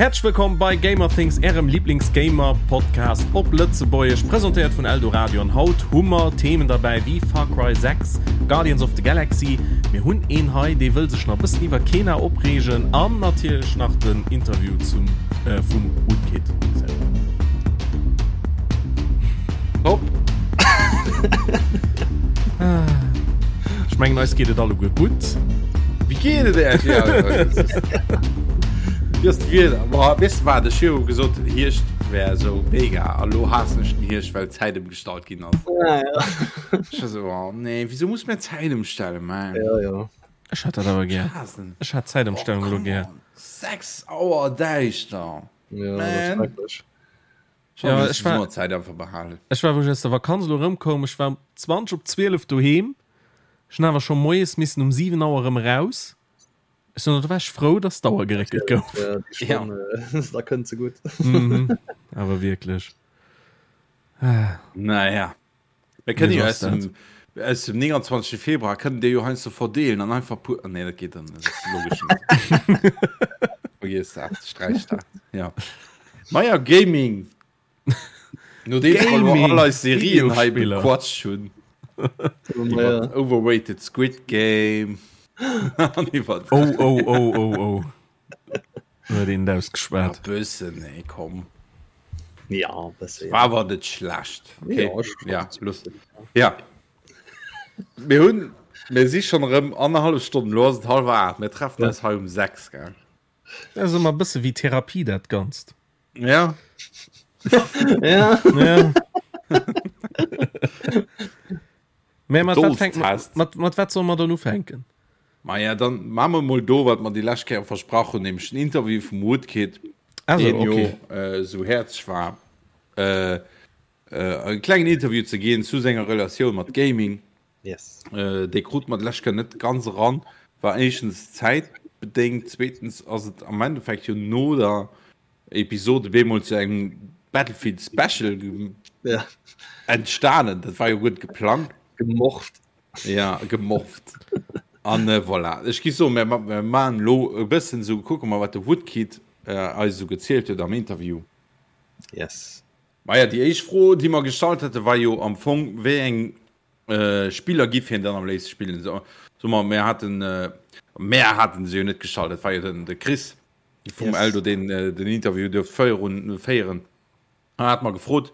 Häerzlech wëllkomm bei Gamerthings, ärem Lieblings-Gamer-Podcast op Lëtzebuergesch, presentéiert vun Eldoradio. An haut hu mer Themen derbäi wéi Far Cry 6, Guardians of the Galaxy, mir hunn een hei, dee wëll sech nach e bëssen iwwer Kena opreegen an natierlech nach den Interview zum, äh, vum Woodkid selwer. Top! Ech mengen, eis geet et alleguer gutt. Wéi geet et Äech? Ja, Wéi ass d'Wieder? Boah, weess de wat, ech hu jo gesot, Hierscht wär esou mega a lo haassen ech den Hierscht, well d'Zäit ëmgestallt ginn ass. Ja, ja. Ech war esou, oh nee, wisou muss mir d'Zäit ëmstellen, man? Ja, ja. Ech hat dat awer gär. Haassen. Ech hat d'Zäitëmstellung Oh, elo come gär. on. 6 Auer däischter, Ja, dat ass man. schrecklech. Ja, ech war, Zäit einfach behalen. Ech war wou ech aus der Vakanz elo erëmkoum, ech war um 20 op 12 doheem. Ech hunn awer scho moies missen um 7 Auer erëm eraus. Ech soen, do war ech frou, dass d'Auer geréckelt gouf. Ja, déi Stonn, ja. da kënnt se gutt. Mhm, awer wierklech. Naja. Mir kënnen jo aus dem, aus dem 29. Februar kënnen Dir jo heiansdo verdeelen an einfach puer. Ah, nee, dat geet dann net. Logesch net. Vergiess dat, sträich dat. Ja. Maja, Gaming. Nodeems wir elo Gaming, all eis Serien hei Videospiller. bequatscht hunn. Iwwer Overrated Squid Game. An iwwer. Oh, oh, oh, oh, oh. Huet een et ausgeschwat. Ja, bëssen, nee, komm. Ja, bësse, ja. War awer net schlecht. Okay. Ja, ech ja, looss. Ja. Mir hunn, mir si schonn erëm annerhallef Stonn, elo ass et hallwer 8, mir treffen eis hei um 6, gell? Dat ass ëmmer e bësse wéi Therapie, dat Ganzt. Ja. Ja. Ja. Mä mat wat fänkt Dolls-Test. mat, mat wat solle mer dann ufänken? Maja, dann maache mer mol do, wat mer déi lescht Kéier versprach hunn, nämlech den Interview vum Woodkid, Also, deen jo okay. äh, esou häerzeg war, äh, äh, e klengen Interview ze ginn zu senger Relatioun mat Gaming. Yes. Äh, dee krut mer d'lescht Kéier net ganz eran, war éischtens zäitbedéngt, zweetens ass et am Endeffekt jo no der Episode bemol zu engem Battlefield Special ja. entstanen. Dat war jo gutt geplangt. Gemorft. Ja, gemorft. An äh, voilà. Ech gi so, mir, mir man lo e bëssen so kucke mal, wat de Woodkid äh, eis so gezielt huet am Interview. Yes. Maja, déi éischt Fro, déi mer gestallt hätte, war jo am Fong, wéi eng äh, Spiller giff hien dann am léifste spillen. So, so mer, mir haten, äh, mer haten se jo net gestallt, dat war jo den, de Chris. vum yes. Eldo den äh, den Interview duerft féieren féieren hat mer gefrot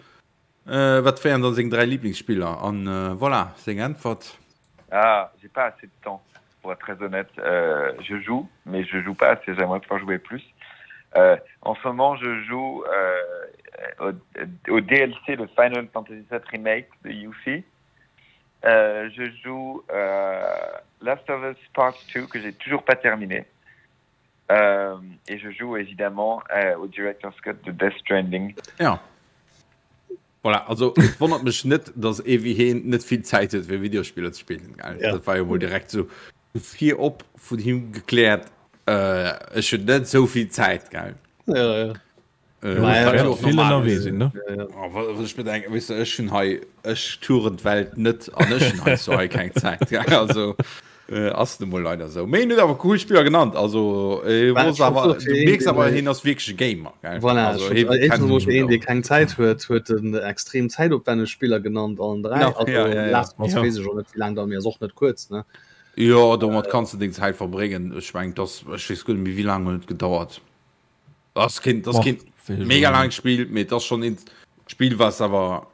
äh, wat wären dann seng dräi Lieblingsspiller an äh, voilà seng Äntwert. Ah, j'ai pas assez de temps pour être très honnête euh, je joue mais je joue pas assez j'aimerais pouvoir jouer plus euh, en ce moment je joue euh, au, au DLC de Final Fantasy VII remake de Yuffie euh, je joue euh, Last of Us Part 2 que j'ai toujours pas terminé Euh, et je joue évidemment euh, au Director's Cut de Death Stranding. Ja. Voilà, also et wonnert mech net, dass ee wéi heen net vill Zäit huet fir Videospiller ze spillen. Gell? Ja. Dat war jo mol direkt sou virop vun him gekläert, äh, ech hunn net sou vill Zäit, gell? Ja, ja. Äh, Ja, wat ja, jo och Vill normal ënnerwee ass. sinn, ne? Ja, ja. Oh, wa- wat ech mir denken, weess de, ech hunn hei, ech touren d'Welt net an ech hunn heiansdo hei keng Zäit. Gell? Also äh, ass nu mol leider sou. Mee en huet awer cool Spiller genannt. Also äh, Well, wos ech wollt awer, soen, fir du een, mierks deen, awer, äh, hien ass wierklech e Gamer. Gell? Voilà, Also ech hie wollt, kennt éischtens emol sech fir een, mat dee aus. keng Zäit huet, huet en extrem zäitopwänneg Spiller genannt, allen dräi. Ja, Also ja, ja, ja. Last of Us Ja. weess ech och net, wéi laang dauert, mee ass och net kuerz, ne? Jo, domat kanns du deng Zäit verbréngen. Ech meng, dass, ech weess guer net méi, wéi laang huet et gedauert. Das kind das kind mega lang Spiel mit das schon ins Spiel was aber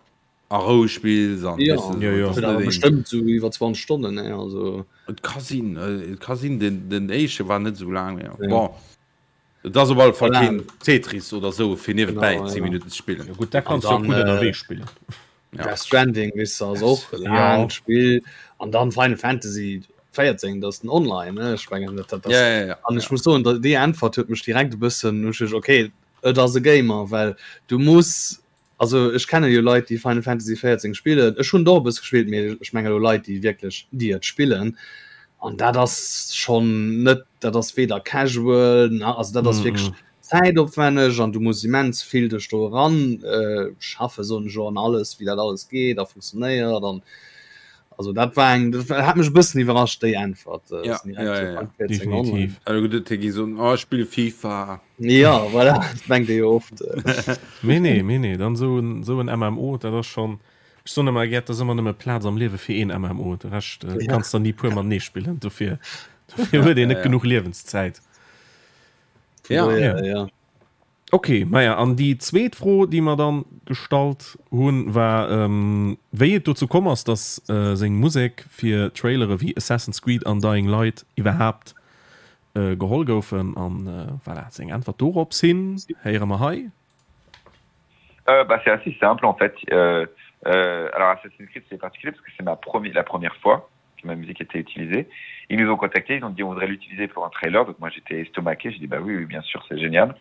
a Rou spiels an ja, weißt du, ja, ja. das net bestimmt so iwwer 20 Stonnen ne also Et ka sinn äh, et ka sinn den den éische war net sou laang ja. Ja. Bon et ass op alle Fall Voilà. keen Tetris oder sou fir niewebäi Genau, 10 ja. Minuten ze spillen. Ja, gut, da kannst du dann, auch gut äh, ënnerwee spillen. Ja. Death Stranding wis ass och e Ja. laangt Spill an dann Final Fantasy 14 dat ass den online ne ech mengen dat dat Ja, ja, ja. an ech muss soen da déi Äntwert huet mech direkt e bëssen hu ech okay et ass e Gamer well du muss also ech kenne jo Leit déi Final Fantasy 14 spillen ech hunn et och e bësse gespillt mee ech menge lo Leit déi wierklech déi et spillen an dat ass schonn net dat ass weder casual na also dat ass wierklech zäitopwänneg an du muss immens vill dech do eran schaffen soen ech elo an alles wéi dat alles geet a funktionéiert an. Also dat war eng, dat hat mech e bëssen iwwerrascht déi Äntwert. Äh, ja, ja, ja, ja. Definitiv. Also gutt, gi so, oh, ech spille FIFA. Ja, voilà, dat mengt ee jo oft. Mee nee, mee nee, dann esou en, esou en MMO, dat ass schonn, ech soen ëmmer gär, et ass ëmmer nëmme Plaz am Liewe fir een MMO, de Rescht äh, ja. kanns der ni puer matenee spillen, dofir, dofir huet een net ja, ja. genuch Liewenszäit. Ja, ja. ja. Ok, maja, an déi zweet Fro, déi mer dann gestallt hunn, war, wéi et dozou komm ass, dass seng Musek fir Trailere wéi Assassin's Creed an Dying Light iwwerhaapt geholl goufen. An voilà, seng Äntwert dorops hin héiere mer hei. Bah, c'est assez simple en fait. Alors Assassin's Creed c'est particulier parce que c'est ma première, la première fois que ma musique était utilisée. Ils nous ont contactés, ils ont dit on voudrait l'utiliser pour un trailer. Donc moi j'étais estomaqué, j'ai dit bah oui, oui bien sûr, c'est génial.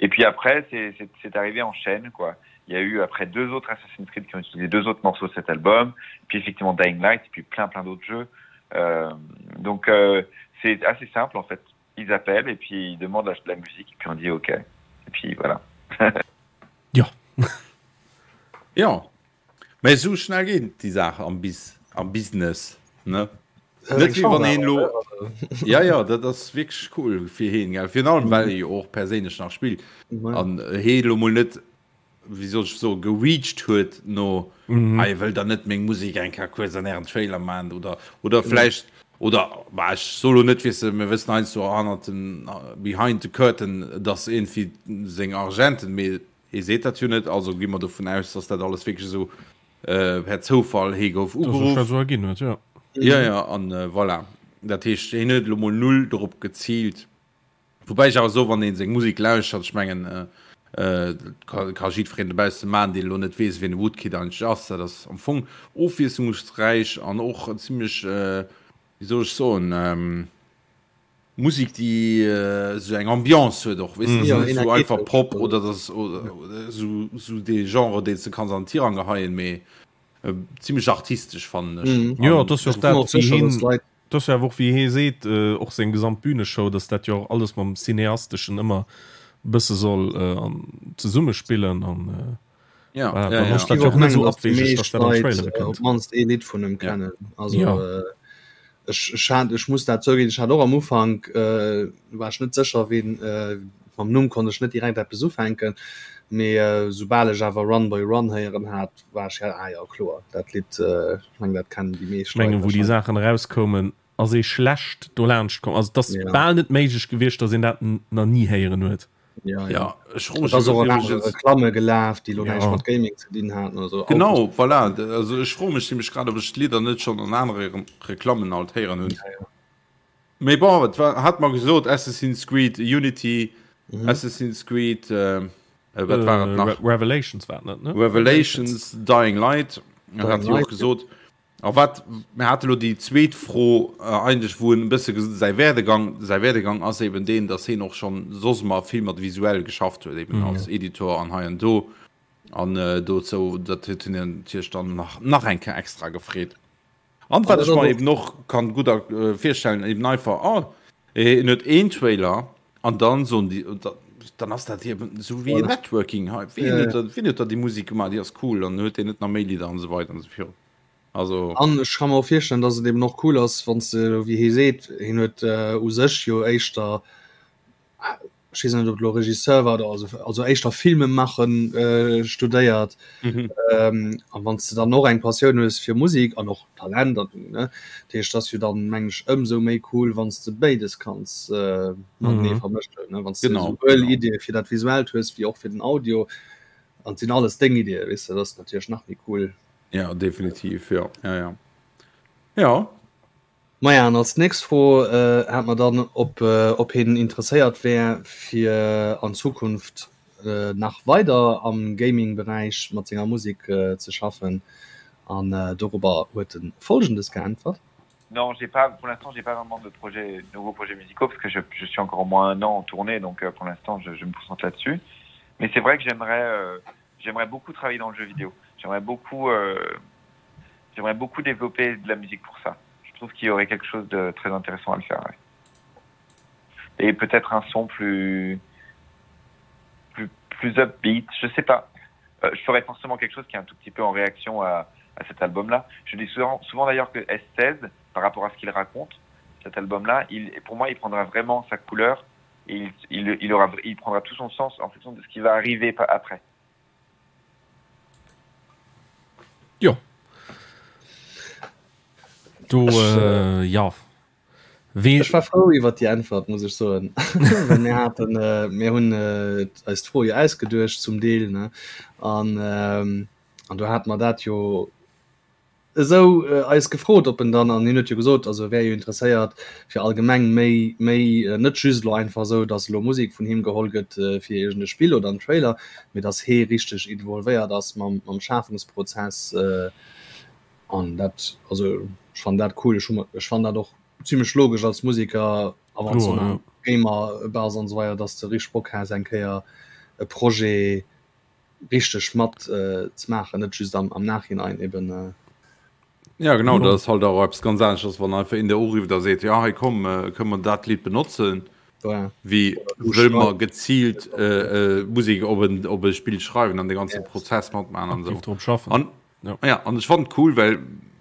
Et puis après c'est arrivé en chaîne quoi. Il y a eu après deux autres Assassin's Creed qui ont utilisé deux autres morceaux de cet album, puis effectivement Dying Light et puis plein plein d'autres jeux. Euh, donc euh, c'est assez simple en fait. Ils appellent et puis ils demandent la, la musique et puis on dit ok. Et puis voilà. ja. ja. Mä esou schnell geet déi Saach am Bis am Business, ne? Net wéi wann een elo Ja, ja, dat ass wierklech cool fir heen, gell? Virun allem, well e jo och perséinlech nach spillt an hee elo mol net, wéi soll ech soen, gereached huet no, Hei, wëllt der net meng Musek eng Kéier kuerz an ären Trailer maachen? Oder, oder vläicht, oder, bah, ech soe lo net, weess de, mir wëssen heiansdo hannert den, behind the curtain, dass iergendwéi seng Argenten, mee Hie seet dat jo net, also gi mer dovun aus, dass dat alles wierklech esou per Zoufall, hie gouf ugeruff. Dass sech dat esou erginn huet, jo. Jo, jo, an voilà. Dat heescht, hien huet elo mol null dorop geziilt. Woubäi ech awer soen, wann ee seng Musek lauschtert, ech mengen, dat ka jiddwereen dobausse maachen, deen elo net weess, wien de Woodkid eigentlech ass, dat ass am Fong ofwiesslungsräich an och zimlech, wéi soll ech soen, Musik déi esou eng Ambiance huet och, weess de, net esou einfach Pop oder dass esou esou dee Genre deen s de kanns an den Tirang geheien, mee zimlech artistesch fannen ech. Jo, et ass jo och dat wéi hien, et ass jo awer och wéi hie seet, och seng gesamt Büneshow, dass dat jo och alles mam Cineasteschen ëmmer e bësse soll zesummespillen an Ja, voilà, ja, ja. Dat jo och net esou abwegeg, dass dat an Trailere kënnt. Op mannst ee Lidd vun em kennen. Also ja. ech, ech, hat, ech muss dat zouginn, ech hat och am Ufank äh, war ech net sécher wien äh, mam Numm konnt ech net direkt eppes ufänken, mee äh, soubal ech awer Run Boy Run héieren hat, war ech ja, ah ja kloer, dat Lidd äh, ech meng dat kennen déi meescht Ech mengen, wou déi Saachen erauskoumen, ass ee schlecht dolaanscht komm. Also et ass ja. bal net méiglech gewiescht, datt een dat nach ni héieren huet. Ja, ja. ja ech froe mech och iwwregens Reklamme gelaf, déi lo ja. näischt mat Gaming ze dinn haten oder so. Genau, voilà. Also ech froe mech nämlech grad, ob ech d'Lidder net schonn an anere Reklammen alt héieren hunn. Ja, ja. Mee bon, et war, hat mer gesot Assassin's Creed Unity, mhm. Assassin's Creed äh, äh wat war et nach? Re Revelations war net, ne? Revelations, Dying Light, Dying hat Light, och gesot. Ja. A wat, mir hate lo déi zweet Fro eigentlech, wou en e bësse säi Werdegang, säi Werdegang ass eben deen, datt hien och schonn soss ëmmer vill mat visuell geschafft huet, eben als Editor an hei an do. An dozou, dat huet hien natierlech dann nach, nach eng Kéier extra gefreet. An wat ech mer eben och kann gutt virstellen, eben einfach, oh, hien huet een Trailer an dann soen déi, dann ass dat eben esou wéi Networking hei, wien huet da, wien huet da déi Musek gemaach, déi ass cool, an huet deen net nach méi Lidder an esou weider an esou virun. Also. An ech ka mer och virstellen, dass et eben och cool ass, wann s de, wéi hie seet, hien huet u sech jo éischter, ech weess net, ob et elo Regisseur war oder also, also éischter Filme maachen studéiert. A wann s de dann och eng Passioun hues fir Musek an och Talent an, ne, dat heescht, ass jo dann, mengen ech, ëmsou méi cool, wann s de béides kanns matenee vermëschen, ne, wann s de esouwuel Iddie fir dat Visuellt hues wéi och fir den Audio. An et sinn alles deng Iddie, weess de, dat ass natierlech nach méi cool. Ja, definitiv, ja, ja, ja. Ja. Maja, an als nächst Fro äh, hat mer dann, ob, äh, ob hien interesséiert wär, fir an Zukunft äh, nach weider am Gaming-Beräich mat senger Musek äh, ze schaffen. An äh, dorobber huet en Folgendes geäntwert. Non, j'ai pas, pour l'instant, j'ai pas vraiment de projets, nouveaux projets musicaux parce que je, je suis encore au moins un an en tournée, donc euh, pour l'instant, je, je me concentre là-dessus. Mais c'est vrai que j'aimerais euh, j'aimerais beaucoup travailler dans le jeu vidéo. J'aimerais beaucoup, euh, j'aimerais beaucoup développer de la musique pour ça. Je trouve qu'il y aurait quelque chose de très intéressant à le faire. Ouais. Et peut-être un son plus, plus, plus upbeat, je sais pas. Euh, je ferais forcément quelque chose qui est un tout petit peu en réaction à, à cet album-là. Je dis souvent, souvent d'ailleurs que S16, par rapport à ce qu'il raconte, cet album-là, il, pour moi, il prendra vraiment sa couleur et il, il, il, aura, il prendra tout son sens en fonction de ce qui va arriver après. Jo. Do, äh, ja. Wee Ech war frou iwwer déi Äntwert, muss ech soen. Well mir haten, äh, mir hunn äh, eis d'Fro jo ausgeduecht zum Deel, ne? An, ähm, an do hate mer dat jo esou äh, eis gefrot, ob en dann, an hien huet jo gesot, also e wär jo interesséiert fir allgemeng méi, méi, äh, net just elo einfach esou, datt elo Musek vun him geholl gëtt äh, fir iergend e Spill oder en Trailer, mee datt hee richteg involvéiert ass mam, mam Schafungsprozess. Äh, An dat, also ech fannen dat cool, ech hu, ech fannen dat och zimlech logesch als Musiker a wann s du nach Gamer bass an esou weider, dass de richteg Bock has eng Kéier e Projet richteg mat ze maachen, net just am am Nachhinein eben. Ja genau, dat ass halt och eppes ganz aneschters, wann einfach een der urifft a seet, jo hei komm, kënne mer dat Lidd benotzen, wéi wëll mer geziilt Musek op en op e Spill schreiwen an de ganze Prozess matmaachen an esou. An Ja. Ja, an ech fand cool, well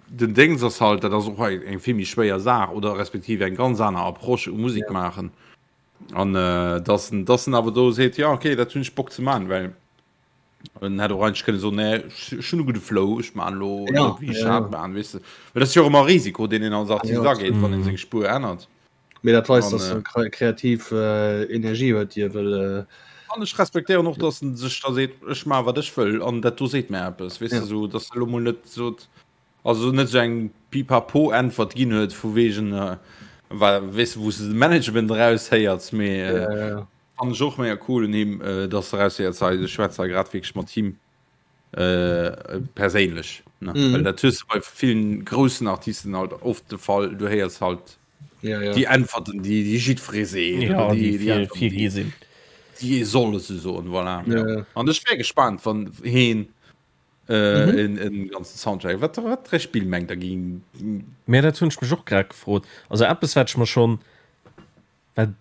den Dings ass halt, dat ass och eng vill méi schwéier Saach oder respektiv eng ganz aner Approche u Musik ja. maachen. An äh, dass en, dass en awer do seet, ja okay, dat hunn ech Bock ze maachen, well en hätt och eigentlech kënne soen, nee, ech hunn e gudde Flow, ech maan lo ja, wéi ech ja, ja. maan, weess de. Well dat ass jo och ëmmer Risiko, deen een als Artist ja. ageet, wann een seng Spuer ännert. Mee dat weist, dass en kreativ Energie huet, déi e wëll. An ech respektéieren och, dass en sech da seet, ech maache wat ech wëll an dat do seet mär eppes, weess de, esou dass e lo mol net sot, also net esou eng Pipapo-Äntwert ginn huet vu wegen, weess de, wou s de de Management eraushéiers, mee fannen ech och mega cool un him, dass de eraushéiers, hei, ech schwätze hei grad wierklech mat him. Äh, perséinlech ne? Mm. Well dat hues du bei villen groussen Artisten halt oft de Fall, du héiers halt ja, ja. déi Äntwerten, déi déi jiddweree seet ja, oder déi, déi, déi, déi, sinn. Déi ee soll se soen, voilà. Ja, ja. An ech wär gespannt, wann heen äh, mhm. en, en ganzen Soundtrack, wat, wat fir Spill mengt der ging. Mä dat hunn ech mech och grad gefrot. Also eppes wat ech mer schonn wat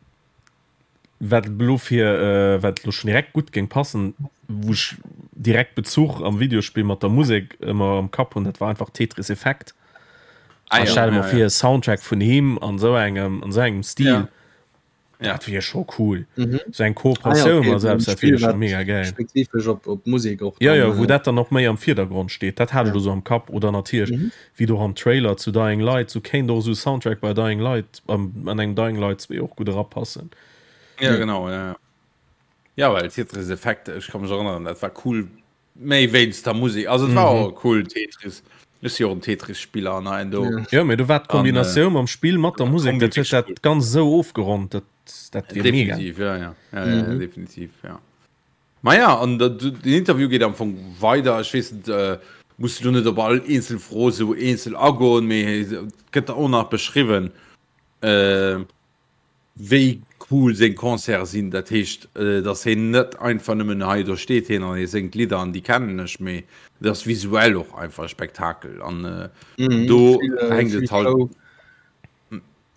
Wat elo fir wat elo schon direkt gutt géing passen, wou ech direkt Bezuch am Videospill mat der Musek ëmmer am Kapp hunn, dat war einfach Tetris Effect. Ah, ja, stell mer ja, fir ja. Soundtrack vun him an sou engem an sou engem Stil. Ja. Dat wier scho cool. Mhm. Sou eng Kooperatioun ah, ja, okay. selbst dat wier scho mega geil. Spezifesch op, op Musek och. Ja, ja, wou dat dann och méi am Virdergrond steet. Dat hat ech ja. so am Kapp oder natierlech mhm. wéi do am Trailer zu Dying Light, sou kéint och sou Soundtrack bei Dying Light an engem Dying Light 2 och gutt erapassen. Ja, genau, ja. Ja, well Tetris Effect, ech ka mech erënneren, dat war cool, méi wéinst der Musek. Also et war och cool, Tetris. Ech si och en Tetris-Spiller an hei an do. Jo, mee do war d'Kombinatioun mam Spill mat der Musek, dat huet dat Ganzt esou ofgeronnt, dat, dat wier mega. Definitiv, ja, ja. Ja, ja, definitiv, ja. Maja, an den Interview geet am Fong weider. Ech weess net, muss elo net op all eenzel Fro esou eenzel agoen, mee et gëtt och nach beschriwwen, wéi cool seng Concerte sinn. Dat heescht, datt hien net einfach nëmmen hei, do steet hien an hie séngt Lidder an déi kennen ech, mee et ass visuell och einfach e Spektakel an do hänkt et halt.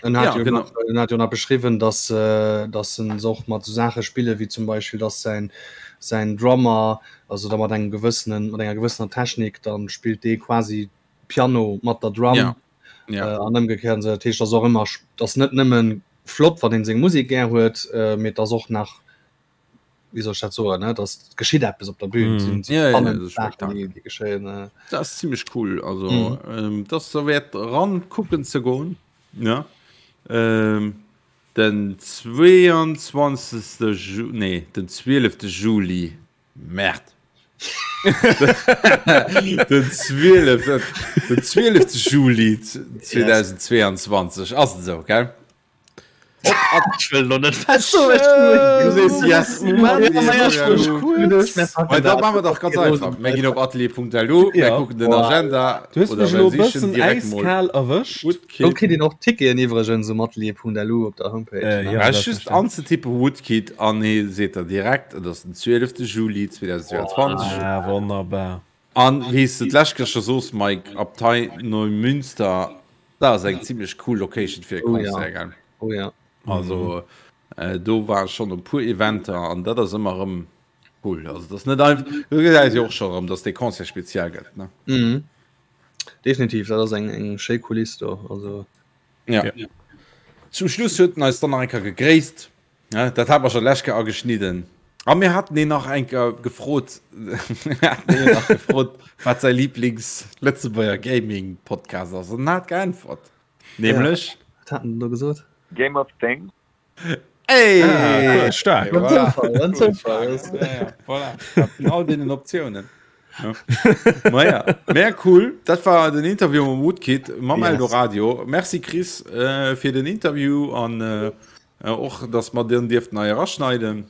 En hat, ja, jo nach, en hat jo nach beschriwwen, dass, äh, dass en se och mat so Saache spille wéi zum Beispill, dass säin, säin Drummer, also da mat engem gewëssenen, mat enger gewëssener Technik, dann spillt dee quasi Piano mat der Drum. Ja. Ja. Äh, an ëmgekéiert. Dat heescht, ass och ëmmer, ass net nëmmen flott, wann een seng Musek gär huet, äh, mee et ass och nach wéi soll ech dat soen, ne, dass geschitt eppes op der Bühn, mm. sinn ja, ja, ja, Sachen, déi, déi geschéien. Äh. Dat ass ziemlech cool, also mm. ähm, dat ass derwäert ran kucken ze goen, ja. Ähm, den 22. Ju nee, den 12. Juli, Merde. den 12. Den 12. Juli 2022 ass et esou, gell? Da machen wir doch ganz einfach. Mir ginn op atelier.lu, mir kucken den Agenda. Du hues mech elo e bëssen äiskal erwëscht. Do kritt een och Ticketen iwwregens um atelier.lu op der Homepage. Äh, ja, just anzetippen Woodkid an hie seet der direkt, et ass den 12. Juli 2022. Ah, wonnerbar. An wéi s de d'lescht Kéier scho soos, Mike, Abtei Neumünster, dat ass eng zimlech cool Location fir e Concert, gell? Oh ja. Also do ware schonn e puer Eventer an dat ass ëmmer erëm cool. Also dat ass net einfach, do gesäis jo och scho erëm, datt dee Concert speziell gëtt, ne? Mhm. Definitiv, dat ass eng eng schéi Kuliss do, also. Ja. ja. Zum Schluss huet en eis dann nach eng Kéier gegréisst. Ja, dat hat mer schon lech Kéier ageschnidden. A mir haten een nach eng Kéier gefrot, mir haten een nach gefrot, wat säi Lieblings-Lëtzebuerger Gaming-Podcast ass. An en hat geäntwert. Nämlech. Ja, wat hat en do gesot? Game of Things. Ey! Ah, cool, stark. Voilà. Zoufall, en Zoufall. Ja, ja, voilà. All deenen Optiounen. Ja. Naja, mehr cool. Dat war den Interview mam Woodkid mam yes. Eldoradio. Merci Chris äh, fir den Interview an äh, och dass mer den dierften hei eraschneiden.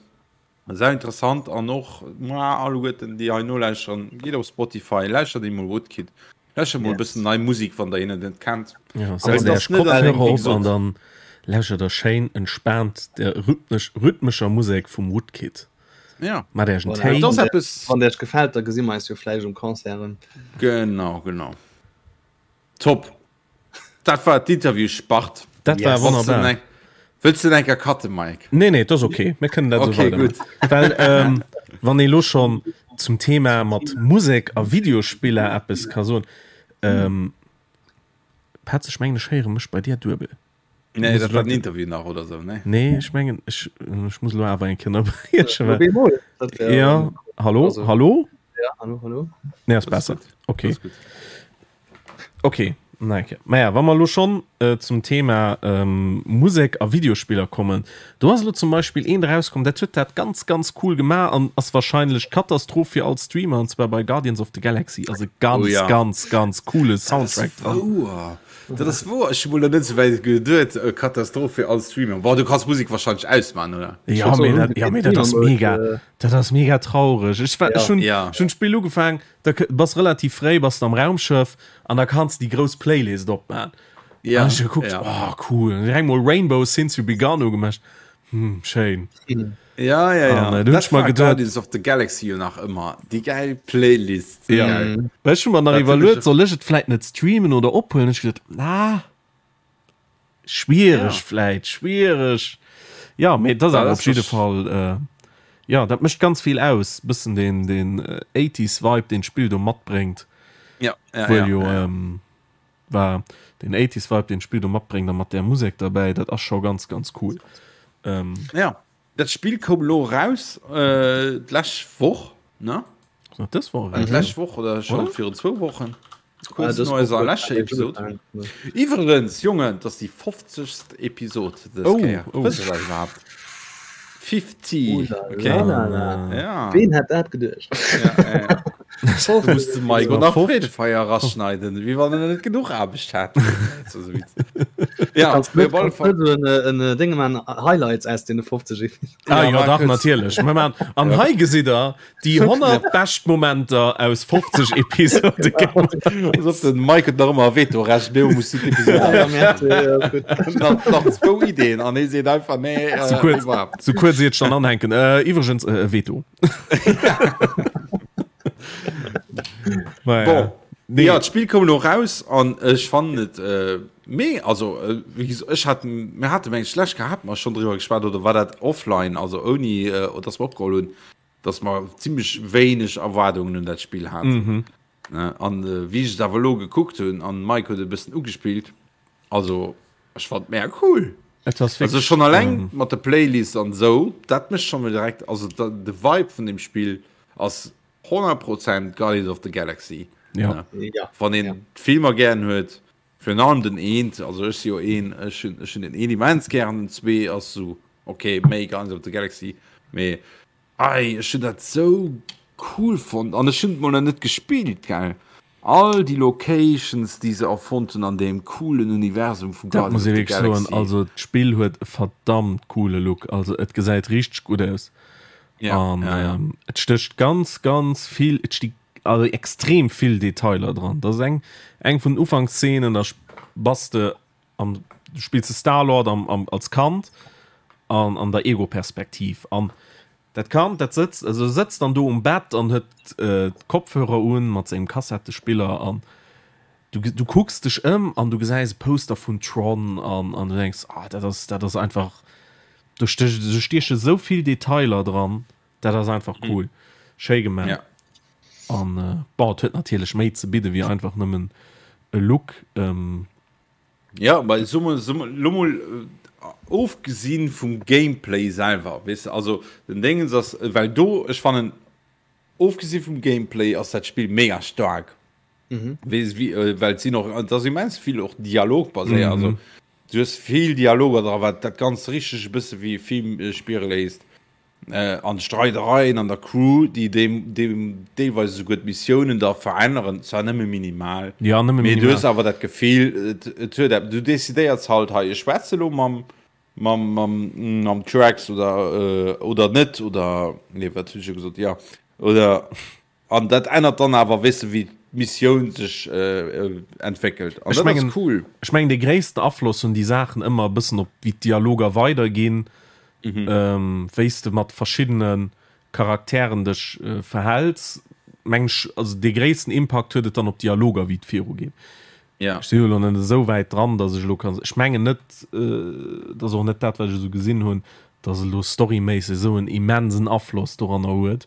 Sehr interessant an och ma alleguerten déi hei nolauschteren, gitt op Spotify, lauschtert emol Woodkid. Lauschtert mol e bëssen nei Musik, wann der hinnen net kennt. Ja, setzt Iech Kopfhörer op an dann lauschtert der schéin entspaant der rhythmesch, rhythmescher Musek vum Woodkid. Ja. Mat Iech en Voilà. Téi. Et ass eppes. Wann der Iech gefält, da gesi mer eis jo vläicht um Concert erëm. Genau, genau. Top. Dat war d'Interviewspart. Dat war Yes. wonnerbar. Wëlls de enker cutten, Mike? Nee, nee, dat ass okay. Mir kënnen dat Okay, esou weidermachen. Well, ähm, wann ee lo schonn zum Thema mat Musek a Videospiller eppes ka soen, ähm, Petz, ech mengen, ech héiere mech bei dir duebel. Nee, dat war den Interview nach oder sou, nee? Nee, ech mengen, ech, ech muss lo awer eng Kéier ënnerbriechen, well. Bemol, dat wär, Ja, hallo, also, hallo? Ja, hallo, hallo. Nee, ass besser. Okay. Okay, na okay. Naja, wa mer lo schonn äh, zum Thema ähm, Musek a Videospiller kommen, do ass lo zum Beispill eent erauskomm, dat huet dat ganz, ganz cool gemaach an ass wahrscheinlech d'Katastroph fir all Streamer, an zwar bei Guardians of the Galaxy ass e ganz, Oh ja. ganz, ganz coole Soundtrack dran. Wouer. Dat ass wouer. Ech hu mol net esou wäit geduet. Äh, Katastroph fir all Streamer. Boah, du kanns Musek wahrscheinlech ausmachen, oder? Ja, mee dat, ja, mee dat ass mega, dat ass mega traureg. Ech war, ech hunn, Ja. ech hunn d'Spill ugefaang, da bass relativ fréi bass de am Raumschëff an da kanns de déi grouss Playlist opman. Ja, An ech gekuckt, ja. oh cool, an direkt mol Rainbow Since You Begun ugemacht. Hm, schéin. Ja, ja, ja. An, äh, du Dat hunn ech mer war geduet- Guardians of the Galaxy jo nach ëmmer. Déi gäil Playlist. Ja. Geil. Well ech hu mer nach Dat hunn iwwerluet, ech- soll ech et vläit net streamen oder ophuelen? Ech geduet, na, Schwiereg Ja. vläit, schwiereg. Ja, mee dat ass Dat awer ass op jidde wahrsch- Fall, äh, ja, dat mécht ganz vill aus, bëssen deen, deen 80s Vibe, deen d'Spill do matbréngt. Ja, ja, Wuel ja, jo, ja. ähm, war den 80s Vibe, deen d'Spill do matbréngt a mat där Musek derbäi, dat ass scho ganz, ganz cool. Ähm, Ja, dat Spill koum elo eraus, äh, d'lescht Woch, ne? Ass dat dës Woch eraus? D'lescht Woch oder scho Oder? virun zwou Wochen. Ah, Kurz no eiser leschter Episod. Iwwerens, Jongen, dat ass déi 50. Episod dës Oh, Kéier. oh. Wësst der dat iwwerhaapt? 50, okay. Ja. Ween hätt dat geduecht? Ja, ja, ja. Du musst de Mike nach Freedefeier raschneiden, wéi wann en net genuch Aarbecht hat. Ja, Kannst op alle Fall. net en en Ding man Highlights aus den 50 Ah, Ja, ja, dach, kurz. natierlech. Mir machen, an hei gesitt der déi 100 bescht Momenter aus 50 Episode. Pass op, den Mike huet nach ëmmer e Vetorecht, mee muss du d'Episode Ja, merci, ja, ist gut. nach, nach zwou Ideen an hie seet einfach nee, äh, Sou kuerz, iwwerhaapt. sou kuerz iert ech dann anhänken. Äh, iwwregens, äh, e Veto. Naja. Bon. Nee. Ja, d'Spill koum elo raus an ech fannen et äh, mee also äh, wéi gesot, ech hat mir hate meng schlecht gehat mer schon driwwer geschwat oder war dat offline also ouni äh, dass mer opgeholl hunn dass mer zimmlech wéineg Erwaardungen un dat Spill haten. Mhm. Ne? An äh, wéi ech et awer elo gekuckt hunn an Mike huet e bëssen ugespillt, also ech fand mega cool. Et ass Also wierklech, schon alleng ähm, mat der Playlist an esou, dat mécht schon mol direkt, also da, de Vibe vun dem Spill ass 100 Prozent Guardians of the Galaxy. Ja. Ne? Ja. Wann een Ja. d'Filmer gären huet, virun allem den eent, also ech si jo een, ech hunn ech hunn den een immens gären, den zwee ass sou okay, méi Guardians of the Galaxy, mee ei, ech hunn dat sou cool fonnt an ech hunn et mol nach net gespillt, gell. All déi Locations déi se erfonnt hunn an deem coolen Universum vu Dat Guardians muss of ee the wierklech soen, Galaxy. also d'Spill huet e verdammt coole Look, also et gesäit richteg gutt aus. Ja, An ja, ja. ähm, et stécht ganz, ganz vill, et sti also extrem vill Detailer dran. Dat ass eng, eng vun den Ufankszenen, da bass de am, du spills de Star-Lord am, am, als Kand an, an der Ego-Perspektiv. An dat Kand, dat sëtzt, also sëtzt dann do um Bett an huet äh, d'Kopfhörer un mat sengem Kassettespiller an du, du kucks dech ëm an du gesäis e Poster vun Tron an, an du denks, ah, dat ass, dat ass einfach, do stech, do stieche sou vill Detailer dran, dat ass einfach cool. Schéi gemaach. Ja. An äh, bon, et huet natierlech méi ze bidde wéi einfach nëmmen. E Look. Jo, mä so mol, so mol, lo mol ofgesinn vum Gameplay selwer, weess de, also den Déngens ass, well do, ech fannen, ofgesi vum Gameplay ass dat Spill mega staark, weess wéi, well et sinn och, et ass immens vill och dialogbaséiert, also du hues vill Dialoger dra, wat dat Ganzt richteg e bësse wéi e Film spiere léisst. An d'Streidereien an der Crew, déi deem deelweis esouguer d'Missiounen da veränneren, zwar nëmme minimal, ja, nëmme mee minimal. Du hues awer dat Gefill, et, et huet eppes, du decidéiers halt, hei, ech schwätze elo mam, mam, mam, mam Drax oder, oder net, oder, nee, wat hunn ech elo gesot, jo, oder. An dat ännert dann awer, weess de, wéi d'Missioun sech entwéckelt. An dat ass cool. Ech mengen, dee gréissten Afloss hunn déi Saachen ëmmer e bëssen op wéi d'Dialoger weiderginn, wéi s de mat verschiddene Charakteren dech verhäls. Meng ech, also dee gréissten Impakt huet et dann op d'Dialoger, wéi et virugeet. Ech sinn elo net esou wäit dran, datt ech elo kann, ech mengen net, dat ass och net dat, wat ech esou gesinn hunn, datt et elo storyméisseg esou en immensen Afloss doranner huet.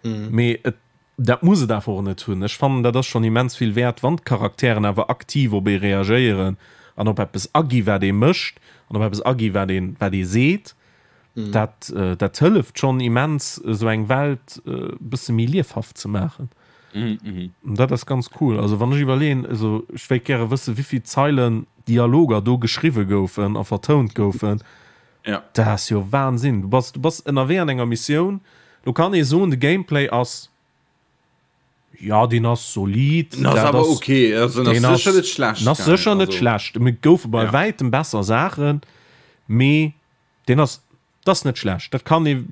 Mee et, dat muss et awer och net hunn. Ech fannen, dat ass schonn immens vill wäert, wann d'Charakteren awer aktiv op ee reagéieren an op eppes agi wat ee mécht an op eppes agi wat ee, wat ee seet. Dat, dat hëlleft schonn immens, esou eng Welt e bësse méi liefhaft ze maachen. An dat ass ganz cool. Also wann ech iwwerleeën, also ech wéilt gäre wëssen, wéivill Zeilen Dialoger do geschriwwe goufen a vertount goufen. Ja. Dat ass jo Wahnsinn. Du bass, du bass ënnerwee an enger Missioun. Do kann ee soen, de Gameplay ass, ja, deen ass solid. Den ass awer okay. Also, den ass sécher net schlecht. Den ass sécher net schlecht. Et goufe bei wäitem besser Saachen, mee deen ass, dat ass net schlecht. Dat kann ee,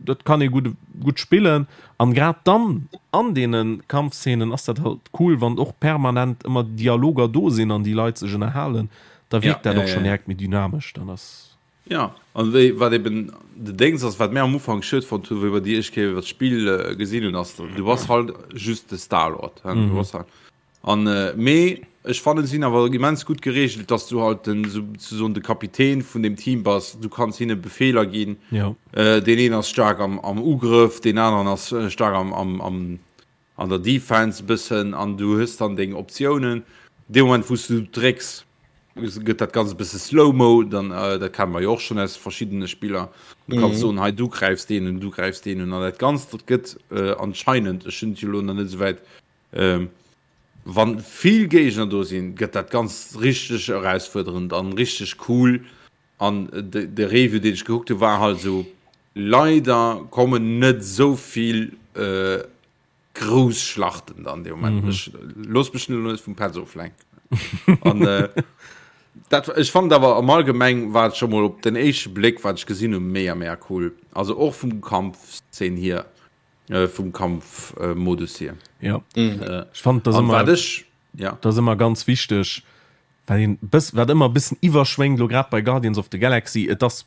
dat kann ee gutt, gutt spillen. An grad dann an deene Kampfszenen ass dat halt cool, wann och permanent ëmmer Dialoger do sinn an déi Leit sech ënnerhalen. Da wierkt dat och schonn direkt méi dynamesch. Dann ass. Jo, an wéi, wat eben de Déngs ass, wat mär am Ufank schued fonnt hunn, wéi mer déi éischt Kéier iwwer d'Spill gesinn hunn, ass, du bass halt just de Star-Lord, hein, du bass halt, an, mee ech fannen, si hunn awer immens gutt geregelt, dass du halt den, souzesoen de Kapitän vun deem Team bass, du kanns hinne Befeeler ginn, deen een ass staark am, am Ugrëff, deen aneren ass staark am, am, am, an der Defense e bëssen an du hues dann deng Optiounen. Dee Moment wou s du drécks, gëtt dat Ganzt e bësse slow-mo, dann dat kenne mer jo och schonn aus verschiddene Spiller. Du kanns soen, hei du gräifs deen un, du gräifs deen un an dat Ganzt dat gëtt anscheinend, ech hunn et jo elo nach net esou wäit, wann vill Géigner do sinn, gëtt dat Ganzt richteg erausfuerderend an richteg cool. An de Review deen ech gekuckt hu war halt esou, leider kommen net esou vill grouss Schlachten dann dee Moment. Ech looss mech elo net vum Petz oflenken. An dat, ech fand awer am Allgemeng war et scho mol op den éischte Bléck wat ech gesinn hu mega mega cool. Also och vum Kampfszene hier, vum Kampfmodus hier. Jo, ech fand dat ëmmer, dat ass ëmmer ganz wichteg, Wat een bëss, wat ëmmer e bëssen iwwerschwéngt, elo grad bei Guardians of the Galaxy, et ass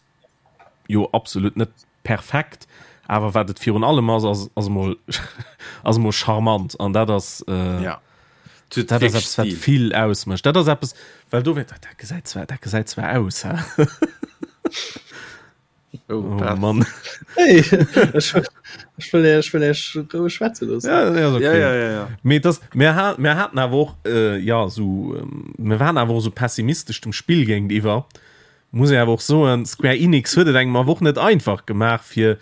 jo absolut net perfekt, awer wat et virun allem ass, ass, ass emol, ass emol charmant an dat ass, äh, Ja. Et huet dat ass wierklech eppes, wat Stil. vill ausmécht. Dat ass eppes, well do wär, dat gesäit zwar, dat gesäit zwar aus, hä? Oh, oh Mann. Hey, ech, ech wëll Iech, wëll Iech roueg schwätze loossen. Ja, ja, okay. Ja, ja, ja, ja. Mee das, mir, ha, mir haten awer och äh, ja, so, ähm, mir waren awer och so pessimistesch dem Spill géintiwwer. Muss ee awer och soen, Square Enix huet et engem awer och net einfach gemaach fir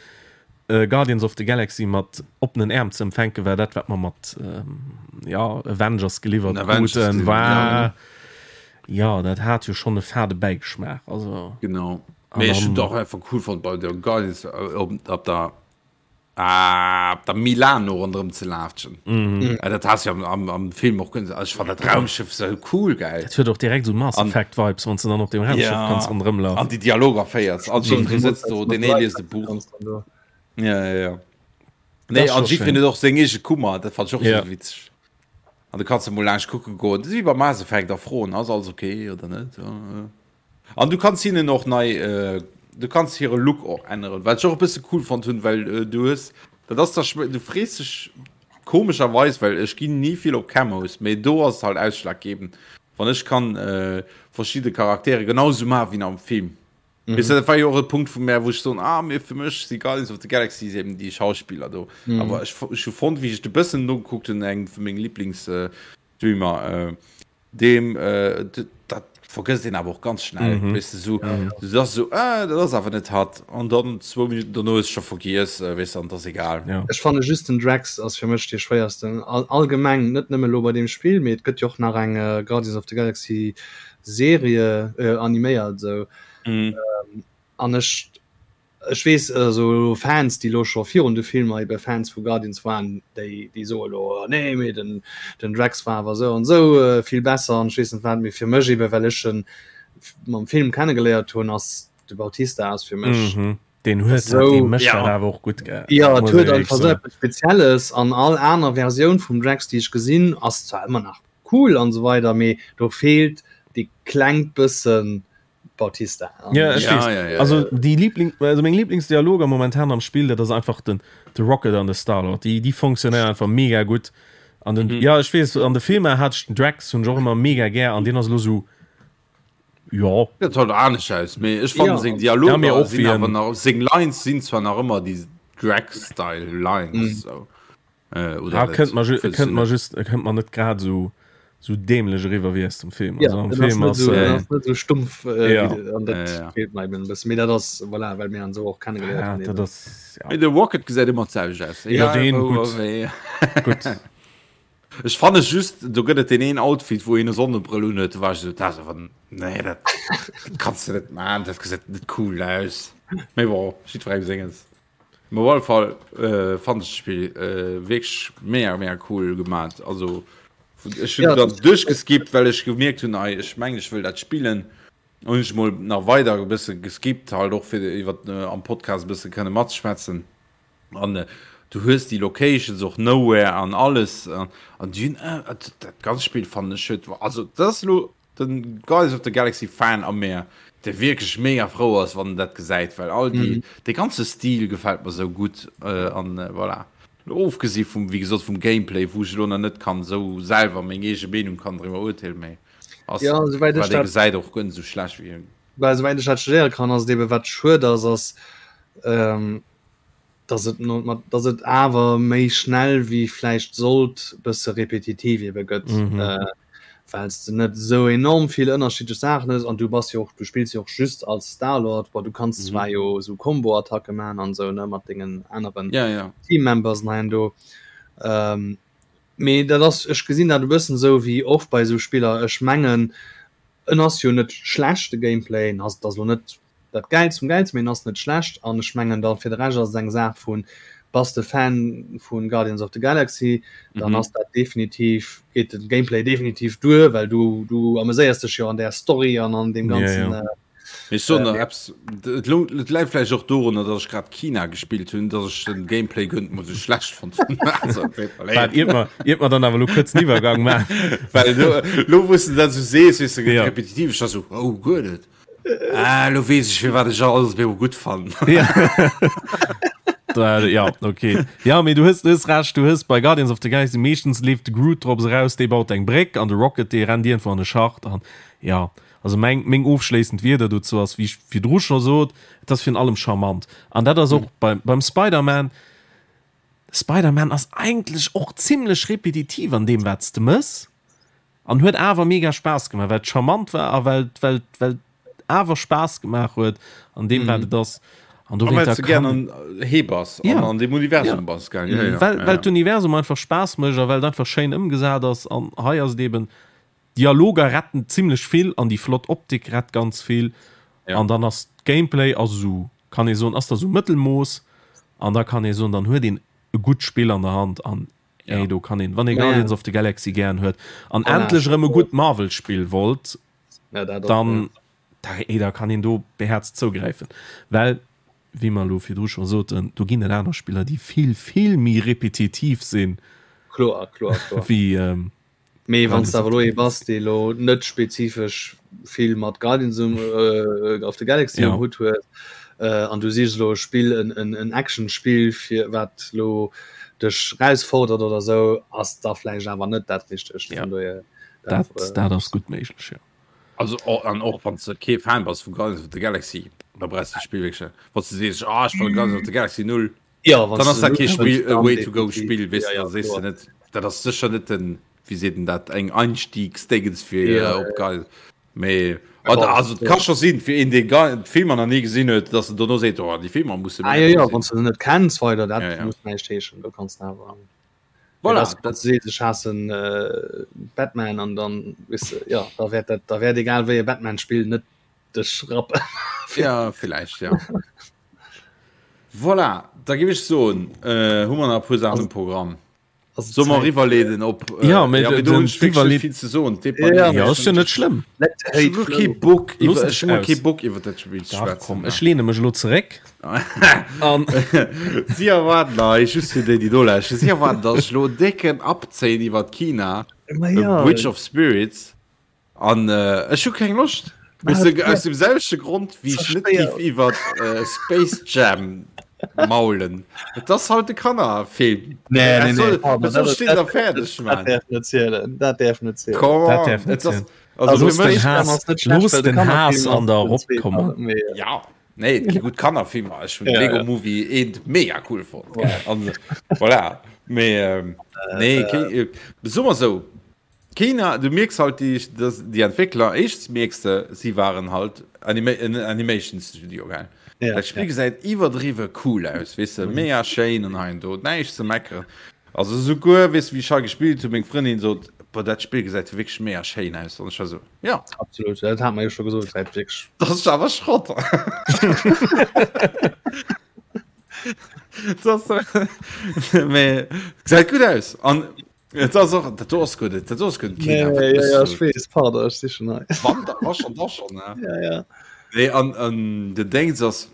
äh, Guardians of the Galaxy mat oppenen Äerm ze empfänken, well dat wat mer mat ähm, ja, Avengers geliwwert Avengers kruten, geliwwert, war ja. dat hat jo schonn e fade Bäigeschmaach. Also Genau. Mee ech hunn et och einfach cool fonnt bei der Guardians op, op der ah, op der Milano ronderëm ze laatschen. Mm. Ja, dat has jo am, am, am Film och können. Also, ech fand dat Raumschiff so cool geil. Dat huet och direkt so Mass Effect Vibes, wann du dann op dem Raumschiff ja. kannst ronderëm laufen. An déi Dialoger féiers. An Jeffrey sëtzt do, den ee liest e Buch. Ja, ja, ja. Nee, an Jeffrey huet och seng eege Kummer, dat fand ech och Ja. so witzeg. An du kanns emol laanscht kucke goen. Dat ass wéi bei Mass Effect a froen, ass alles okay oder net? Ja, ja. An du kanns hinnen och nei, du kanns hire Look och änneren, wat ech och e bësse cool fonnt hunn, well du hues, dat ass da, du frees dech komescherweis, well ech ginn ni vill op Camos, mee do ass et halt ausschlaggebend, wann ech kann verschidde Charaktere genau esou maachen wéi am Film. Weess de, dat war jo och e Punkt vu mär, wou ech soen, ah, mee fir mech si Guardians of the Galaxy eben déi Schauspiller do. Awer ech hu fonnt, wéi ech et e bëssen nogekuckt hunn, eng vu menge Liblingsstreamer. Deem dat vergësst een awer och ganz schnell, mm -hmm. weess de, sou, ja, ja. du ass sou, ah, dat ass awer net hatt an dann zwou Minuten dono ass scho vergiess, äh, weess de, an dat ass egal. Ja. Ech fanne just den Drax ass fir mech dee schwéiersten all, allgemeng, net nëmme lo bei deem Spill, mee et gëtt jo och nach eng äh, Guardians of the Galaxy Serie äh, animéiert sou. Mm. Ähm, an ech Ech weess also Fans déi elo scho virun de Filmer ebe Fans vu Guardians waren, déi déi soe elo oh nee mee den den Drax war awer esou an esou vill besser an ech weess net wat, mee fir mech ebe well ech en mam Film kennegeléiert hunn ass de Bautista ass fir mech mhm. Den huet esou dee mécht dat awer och gutt gell. Jo et huet einfach esou eppes Spezielles an all aner Versioun vum Drax déi ech gesinn ass zwar ëmmer nach cool an esou weider mee do feelt dee klengt bëssen Bautista. Ja, ech ja, ja, ja, also die Liebling, also meng Lieblingsdialoger momentan am Spiel, dat ass einfach den de Rocket an de Starlord. Die die funktionéieren einfach mega gutt. An den mhm. ja ech weess an de Filmer hat den Drax hunn och ëmmer mega gär an den ass lo so ja dat hat anescht aus mee ech fand ja. seng Dialoger ja, och sinn awer nach seng Lines sinn zwar nach ëmmer déi Drax-Style Lines mhm. so. Äh, oder ah, kënnt man kënnt man just kënnt man net grad so so dämlech eriwwer wéi aus dem Film. Ja, also, am Film ass, so, äh, net so stumpf äh, ja. an dat ja, ja. feelt mir eben bëssen. Mee dat ass voilà, well mir an so och kennengeléiert ja, dat ass, ja. De Rocket gesäit ëmmer d'selwecht aus. Ja, den gutt. Gutt. Ech fanne just do gëtt et deen een Outfit wou een e Sonnebrëll un huet, do war ech esou dat ass awer nee dat kanns de net man, dat gesäit net cool aus. Mee bon, jiddwerengem senges. Mee op alle Fall äh, fand ech d'Spill äh, wierklech mega mega cool gemaat. Also ech hunn ja, dann duerchgeskippt, well ech gemierkt hunn, ei ech mengen ech wëll dat spillen. Hunn ech mol nach weider e bësse geskippt, halt och fir iwwer äh, am Podcast e bësse kënne matzeschwätzen. An äh, du hues déi Locations och Nowhere an alles an, an déi hunn äh, dat ganzt Spill fannen ech huet also dat ass elo Den Guardians of the Galaxy Fan a mär, dee wierklech mega frou ass, wann en dat gesäit, well all déi, dee ganze Stil gefält mer sou gutt an voilà. Ofgesi vum, wéi gesot, vum Gameplay, wou ech elo nach net kann sou selwer meng eege Meenung kann driwwer urteelen, mee ass, Ja, souwäit ech wat ee dat, gesäit, och guer net sou schlecht wéi. well souwäit ech dat studéiere kann, ass et ebe wat schued ass, ass, dass et no mat dass et awer méi schnell wéi vläicht sollt bësse repetitiv ebe gëtt, mm -hmm. äh, well s de net esou enorm vill ënnerschiddlech Saachen hues an du bass jo och du spills jo och just als Star-Lord, bon du kanns mm -hmm. zwar jo esou Combo-Attacke man an esou ne mat dengen aneren ja, ja. Team-Members hei an do. Ähm, mee dat ass ech gesinn dat e bëssen esou wéi oft bei esou Spiller, ech mengen en ass jo net schlecht de Gameplay, en ass et ass lo net dat Gäilst vum Gäilsten, mee en ass net schlecht an ech mengen da fir de Rescht ass et eng Saach vun, bass de Fan vu Guardians of the Galaxy, dann mhm. ass dat definitiv, geet de Gameplay definitiv duer, well du, du ameséiers dech jo an där Story an an deem ganzen. Ja, ja. Äh, Ech soen nach eppes, et et läit vläicht och dorunner, datt ech grad Kina gespillt hunn, datt ech den Gameplay guer net mol sou schlecht fonnt hunn. Also, tut mer leed. Waart, iert mer, iert mer dann awer elo kuerz den Iwwergang maachen. Well elo, elo wou s de dat sou sees, weess de, gëtt Ja. repetitiv, ech war sou, oh, guer net. Ah, lo weess ech firwat ech alles op gutt fannen. Ja. ja, okay. Ja, mee du hues, du hues Recht, du hues bei Guardians of the Galaxy meeschtens leeft de Groot drops eraus, dee baut eng Bréck an de Rocket, dee rennt iergendwou an e Schacht an ja. Also meng, meng ofschléissend Wierder dozou ass, wéi ech virdru scho sot, et ass virun allem charmant. An dat ass och beim, beim Spider-Man, Spider-Man ass eigentlech och zimlech repetitiv an deem wat s de mëss. An huet awer mega Spaass gemaach, well et charmant war a well well well et awer Spaass gemaach huet an deem wat et ass. An do well s de gär an hee bass an an deem Universum bass, gell? Ja, ja, well well d'Universum einfach Spaass mécht a well et einfach schéin ëmgesat ass. An hei ass et eben, Dialoger retten zimlech vill an déi flott Optik rett ganz vill. An dann ass d'Gameplay ass esou, kann ee soen, ass da sou Mëttelmooss an da kann ee soen, dann huet een e gutt Spill an der Hand an Ja. Ey, do kann een, wann ee Guardians of the Galaxy gären huet an voilà. endlech erëm e gutt Marvel-Spill wollt, ja, dat dann ja. da, ey, da kann een do behäerzt zougräifen. Well, wéi mer elo virdru scho soten, do ginn et aner Spiller, déi vill, vill méi repetitiv sinn. Kloer, kloer, kloer. Wéi, ähm, Mee wann s de awer elo ee bass, dee elo net spezifesch vill mat Guardians of the Galaxy um Hutt huet, an du sichs elo e Spill, en Action-Spill, fir wat elo dech erausfordert oder esou, ass da vläicht awer net dat Richtegt. Vun dohier dat. Dat ass gutt méiglech, jo. Also an och wann s de kee Fan bass vu Guardians of the Galaxy, da brauchs de d'Spill wierklech net. Wann s de sees, ah ech fannen Guardians of the Galaxy null, Ja, dann ass dat kee Spill, e Way to go Spill, weess de, da sees de net, dat ass sécher net den. wéi seet en dat, eng Einstiegsdéngens fir op geil. Mee also et ka scho sinn fir een dee d'Filmer nach ni gesinn huet, datt en dono seet, oh déi Filmer musse mir. Ah jo jo, wann s de se net kenns weider, dat muss näischt heeschen, do kanns de awer. Voilà, dat seet ech haassen Batman an dann weess de, jo da wäert dat, da wäert egal wéi e Batman-Spill net dech rappen. Ja villäicht ja. Voilà, da géif ech soen, hu mer nach e puer Saachen um Programm. Solle mer eriwwerleeden op Ja, mee ja, mee do hunn ech wierklech net vill ze soen. Ja, ass jo net schlëmm. Ech hunn kee Bock iwwer ech hunn kee Bock iwwer dat Spill ze schwätzen. Dach komm, ech lehne mech elo zeréck an. Si erwaarden hei, just fir déi déi do lauschteren, si erwaarden, datt ech elo en décken abzéien iwwer Kina, Bridge of Spirits. An ech hu keng Loscht. Weess de, aus dem selwechte Grond, wéi ech net géif iwwer Space Jam maulen. Et ass halt e Kannerfilm. Nee, nee, nee. Dat soll stinn a fäerdeg, Mann. Dat däerf net zielen. Dat däerf net zielen. Come Dat on. däerf net Et ass, zielen. also Looss fir den mech. Haass, looss den Haass an der eropkommen. Ja, nee, et gi gutt Kannerfilmer. Ech hunn Ja, Lego ja. Movie eent mega cool fonnt. An voilà. Mee, nee, kee, soe mer esou, Kina, du mierks halt déi, dass déi Entwéckler, éischtens mierks de, si waren halt Anima en Animation Studio, gell? Ja, Dat Spill ja. gesäit iwwerdriwwe cool aus, weess de, mega schéin an hei an do, näischt ze meckeren. Also souguer, weess de, wéi ech hei gespillt hunn, meng Frëndin sot, Boah, dat Spill gesäit jo wierklech mega schéin aus. An ech war sou, ja. Absolut, dat hat mer jo scho gesot, gesäit wierklech. Dat ass awer Schrott. Dat ass, mee gesäit gutt aus. An Et ass och, dat do ass guer net, dat do ass guer net Kina. Nee, ja, ja, ech weess, pardon, ech si schon hei. Wann, da war schon, da schon, ne? Ja, ja. Nee, an, an den Dings ass,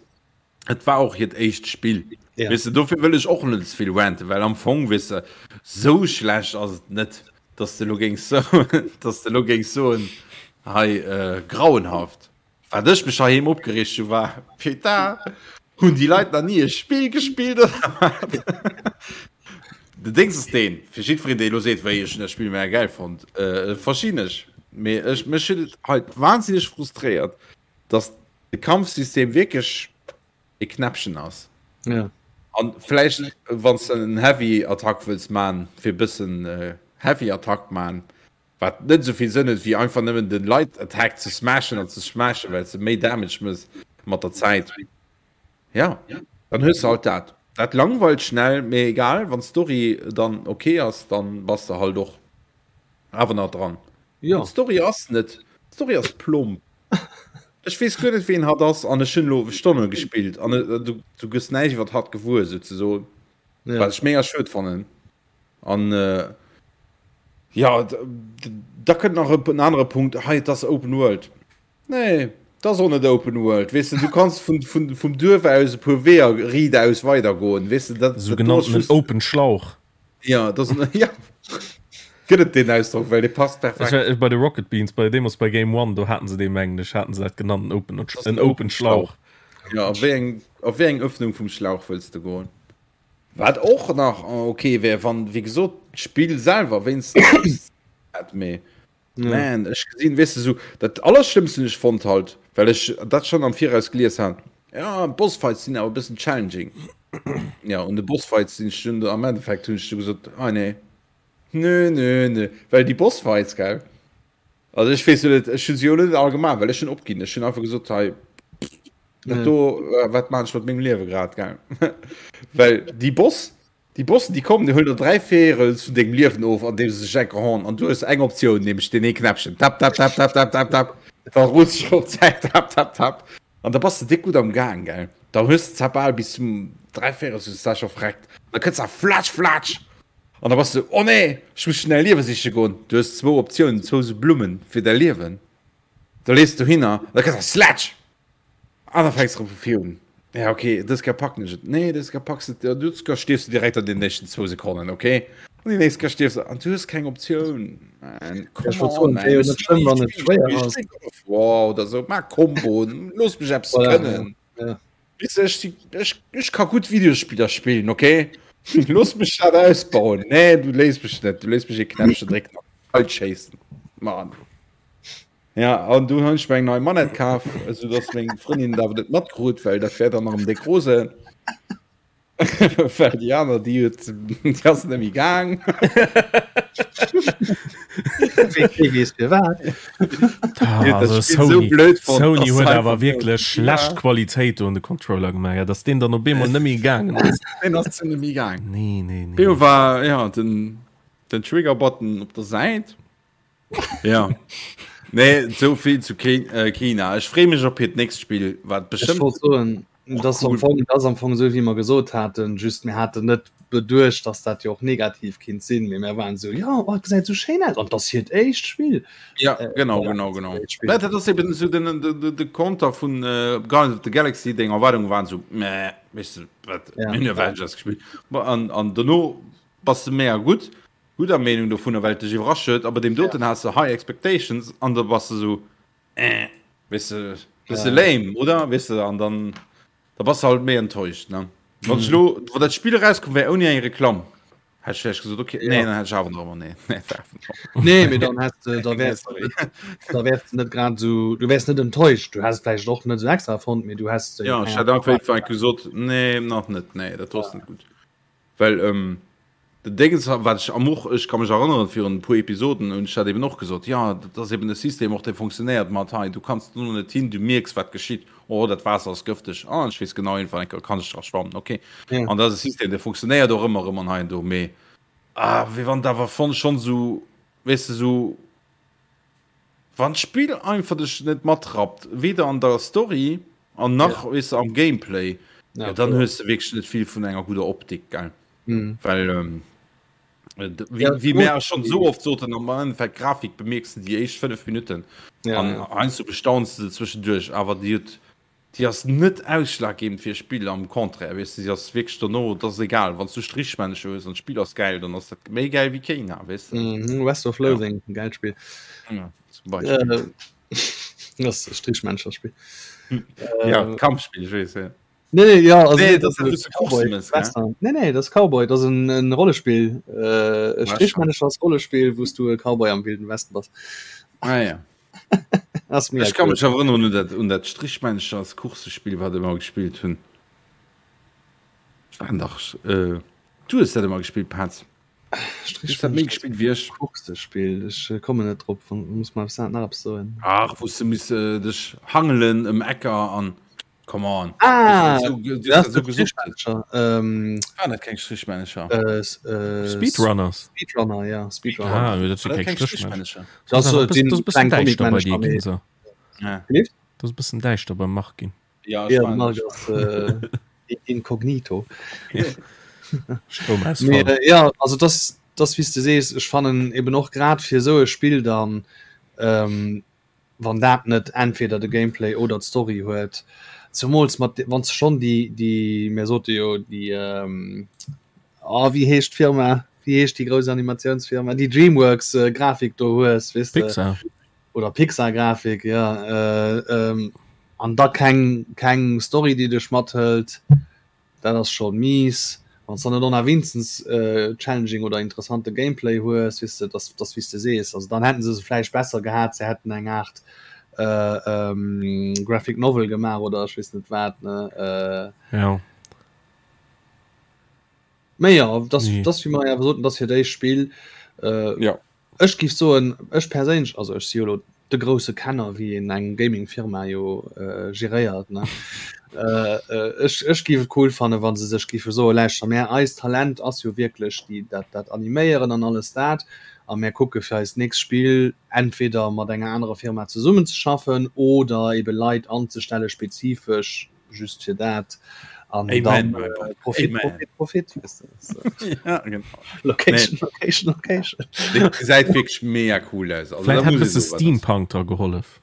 et war och hiert éischt Spill. Ja. Weess de, dofir wëll ech och net ze vill ranten, well am Fong, weess de, sou schlecht ass et net, dass de lo géings soen, dass de lo géings soen, hei, äh, grauenhaft. Wat ech mech heiheem opgereegt hu war, Putain, hunn déi Leit nach ni e Spill gespillt oder wat? Den Dings ass deen, fir jiddwereen dee elo seet, wéi ech hunn dat Spill mega gäil fonnt, verstinn ech, mee ech, mech huet et hei wahnsinneg frustréiert, dass de Kampfsystem wierklech e Knäppchen ass. Ja. An vläicht wann s de en Heavy Attack wëlls man, fir e bëssen Heavy Attack man, Wat net esou vill Sënn huet wéi einfach nëmmen den Light Attack ze smashen an ze smashen, well se méi Damage mëss mat der Zäit. Ja, dann hues de halt dat. Dat langweilt schnell, mee egal, wann d'Story dann ok ass, dann bass de halt och awer nach dran. Jo. D'Story ass net, d'Story ass plomp. Ech weess guer net ween hatt ass an ech hunn elo Stonne gespillt an du du gëss näischt iwwert hatt gewuer souzesoen, Ja. wat ech mega schued fannen. An jo, da kënnt nach en anere Punkt, hei et ass Open World. Nee, et ass och net Open World, weess de, du kanns vun, vun, vum Duerf aus e puer Weeër riidaus weidergoen, weess de, dat, Sou dat do ass genannten just. Open Schlauch. Ja, dat ass en, ja, gëtt et deen Ausdrock, well dee passt Ech perfekt. war bei de Rocket Beans, bei deemools bei Game One, do haten se dee mengen ech, haten se dat genannt, en Open, Dat ass en en Open Open Schlauch. Schlauch. Ja, a wéi eng, a wéi eng Öffnung vum Schlauch wëlls de goen? Wat och nach ok wär, wann, wéi gesot, d'Spill selwer wéinstens eppes hätt, mee man, ech gesinn, weess de, sou dat Allerschlëmmst hunn ech fonnt halt, well ech dat schonn am Viraus gelies hat, jo, d'Bossfights sinn awer e bëssen challenging. Jo, un de Bossfights sinn ech dunn, am Endeffekt hunn ech du gesot, ah nee, nö, nö, nö, well déi Bossfights, gell, also ech weess jo net, ech hu se jo net all gemaach, well ech hunn opginn, ech hunn einfach gesot, hei, Dat do, äh, wat man ech mat mengem Liewe grad gell? Well déi Boss, déi Bossen, déi kommen, déi huelen der 3 Véierels vun dengem Liewen of, an deem se sech enker horn. An du hues eng Optioun, nämlech deen ee Knäppchen. Tap, tap, tap, tap, tap, tap, tap. Da rullt sech op d'Säit, tap, tap, tap. An da bass de déck gutt am Gaang, gell? Da hues de zwar bal bis zum 3 Véierels hues de zwar scho verreckt. Da kënns da flatsch, flatsch! An da bass de, oh nee, ech muss schnell Liewe siche goen. Du hues zwou Optiounen, zwou sou Blummen fir däi Liewen. Da lees du hinner, da kënns da slatsch! An da fänks erëm vu vir un. Ja, okay, dës Kéier packen ech et. Nee, dës Kéier packs et. Dës Kéier stierfs du direkt an den nächsten zwou Sekonnen, okay? An déi nächst Kéier stierfs du. An du hues keng Optioun. Man, come on, man. Wär jo net schlëmm, wann et schwéier ass. God of War oder sou, maach Komboen, looss mech eppes Voilà, kënnen. ja. Weess de, ech si, ech, ech ka gutt Videospiller spillen, okay? Looss mech dat ausbauen. Nee, du léiss mech net. Du léiss mech ee Knäppchen drécken an kalt schéissen. Mann. Ja, an du hunn ech mir eng nei Manette kaf, esou dass meng Frëndin dat awer net matkrut, well dat wär dann erëm déck rose. Well déi aner, déi huet, déi ass net méi gaang. Wees fir wat. Also Sony, Sony huet awer wierklech schlecht Qualitéit do un de Controller gemaach, ja, dass deen dann op eemol net méi gaangen ass. Deen ass net méi gaangen. Nee, nee, nee. Deem war ja den, den Trigger-Button op der Säit. Ja. Nee, sou vill zu Kena. Ech freeë mech op hiert nächst Spill, wat bestimmt. Ech wollt soen, dat am Fong, dat ass am Fong esou wéi mer gesot haten, just mir haten net beduecht, dass dat jo och negativ kinnt sinn, mee mir waren esou, jo, oh, et gesäit esou schéin aus an et ass hiert éischt Spill. Ja, genau, genau, genau. Ja, dat ass eben esou den, den, de Konter vun Guardians of the Galaxy, deng Erwaardunge waren esou, meh, weess de, wat, mir hunn Avengers gespillt. An, an dono bass de mega gutt. Gudder Meenung dovunner, well et dech iwwerrascht huet, a bei deem doten has de high expectations an da bass de sou eh, weess de, bësse lame, oder? Weess de, an dann da bass de halt méi enttäuscht, ne? Wann ech elo, wann dat Spill erauskomm wär ouni eng Reklamm, hätt ech vläicht gesot, okay, nee, dann hätt ech awer nach ëmmer nee, nee, war awer nach. Nee, mee dann häss de, da wäers de net, da wäers de net grad esou, du wäers net enttäuscht, du häss et vläicht och net esou extra fonnt, mee du häss. Jo, ech hätt einfach gesot, nee, nach net, nee, dat do ass net gutt. Well den Déngens, wat ech am och, ech ka mech erënneren, virun e puer Episoden hunn ech dat eben och gesot, jo, dat ass eben e System och, dee funktionéiert mat hei, du kanns do net hin, du mierks, wat geschitt, oh, dat Waasser ass gëfteg, ah, ech weess genau, iergendwann eng Kéier kann ech dra schwammen, okay. An dat ass e System, dee funktionéiert och ëmmer erëm an hei an do, mee ah, wéi wann et awer schonn esou, weess de, esou. Wann d'Spill einfach dech net matrappt, weder an der Story an nach ja. wees am Gameplay, ja, ja, dann hues du wierklech net vill vun enger guder Optik gell. Mhm. Well ähm, äh, wie, ja, wie mär schon so oft soten am Endeffekt Grafik bemierkst du déi éischt 5 Minuten ja, an ja. heiansdo bestaunst du zwischendurch, awer déi huet Déi ass net ausschlaggebend fir e Spill, am Contraire, weess de, si ass wierklech dono, et ass egal, wann s du Strichmännchen hues an d'Spill ass gäil, dann ass dat méi gäil wéi Kena, weess de. Mhm, West of Loathing, ja. Gäilt Spill. Ja, zum Beispill. Äh, das ist Strichmänncherspiel. Ja, äh, Kampfspiel, ich weess, ja. Nee, nee, ja, also, nee, das, das ist Cowboy, Western. Nee, nee, das Cowboy, das ist ein, ein Rollespiel. Äh, Strichmännchers Rollespiel, wo du e Cowboy am Wilden Westen bass. Ah, ja. Ech ka mech erënneren un dat, un dat Strichmännchers Coursespill, wat ech ëmmer gespillt hunn. Waren dach, äh, du hues dat ëmmer gespillt, Paz. Du hues dat méi gespillt wéi ech. Coursespill, ech kommen net drop, muss mer nach eppes soen. Ach, wou s de miss dech hangelen ëm Ecker an. Come on. Ah, so, das so gesucht. Ähm, ah, dat keng Strichmännecher. Äh, äh, Speedrunners. Speedrunner, ja, Speedrunner. Ah, dat si keng Strichmännecher. Das ist bëssen däischter bei dir ginn so. Ja. Dat ass bëssen däischter beim Marc ginn. Ja, ja Marc ass äh, inkognito. Stroumausfall. Nee, äh, ja, also das, das wéi s de sees, ech fannen eben och grad fir esou e Spill dann ähm, wann dat net entweder de Gameplay oder d'Story huet, zemools mat wann s de schonn déi déi mir sote jo déi oh wéi heescht d'Firma, wéi heescht déi grouss Animatiounsfirma, déi Dreamworks Grafik do hues, weess de, Pixar. oder Pixar Grafik, jo, an da keng keng Story déi dech mathëlt. Dat ass schon mies. Wann s dann net och nach wéinstens challenging oder interessante Gameplay hues, weess de, dass dass wéi s de sees. Also dann hätten se se vläicht besser gehat, se hätten eng Aart Graphic Novel gemaach oder ech weess net wat, ne. Jo. Mee jo, dass dass wéi mer awer soten, dass hiert éischt Spill. Jo. Ech giff soen, ech perséinlech, also ech si jo elo de grousse Kenner wéi een eng Gaming-Firma jo geréiert, ne, ech ech giff et cool fannen, wa se sech giffe soen, lauschter mär, eist Talent ass jo wierklech déi dat dat Animéieren an alles dat, a mär kucke fir eist nächst Spill entweder mat enger anerer Firma zesummenzeschaffen oder ebe Leit anzestelle spezifesch just fir dat an dann äh, Profit, Profit, Profit, ja, genau. Location, nee. Location, Location. Gesäit wierklech mega cool aus. Also, Vielleicht hat se Steampunk da gehollef.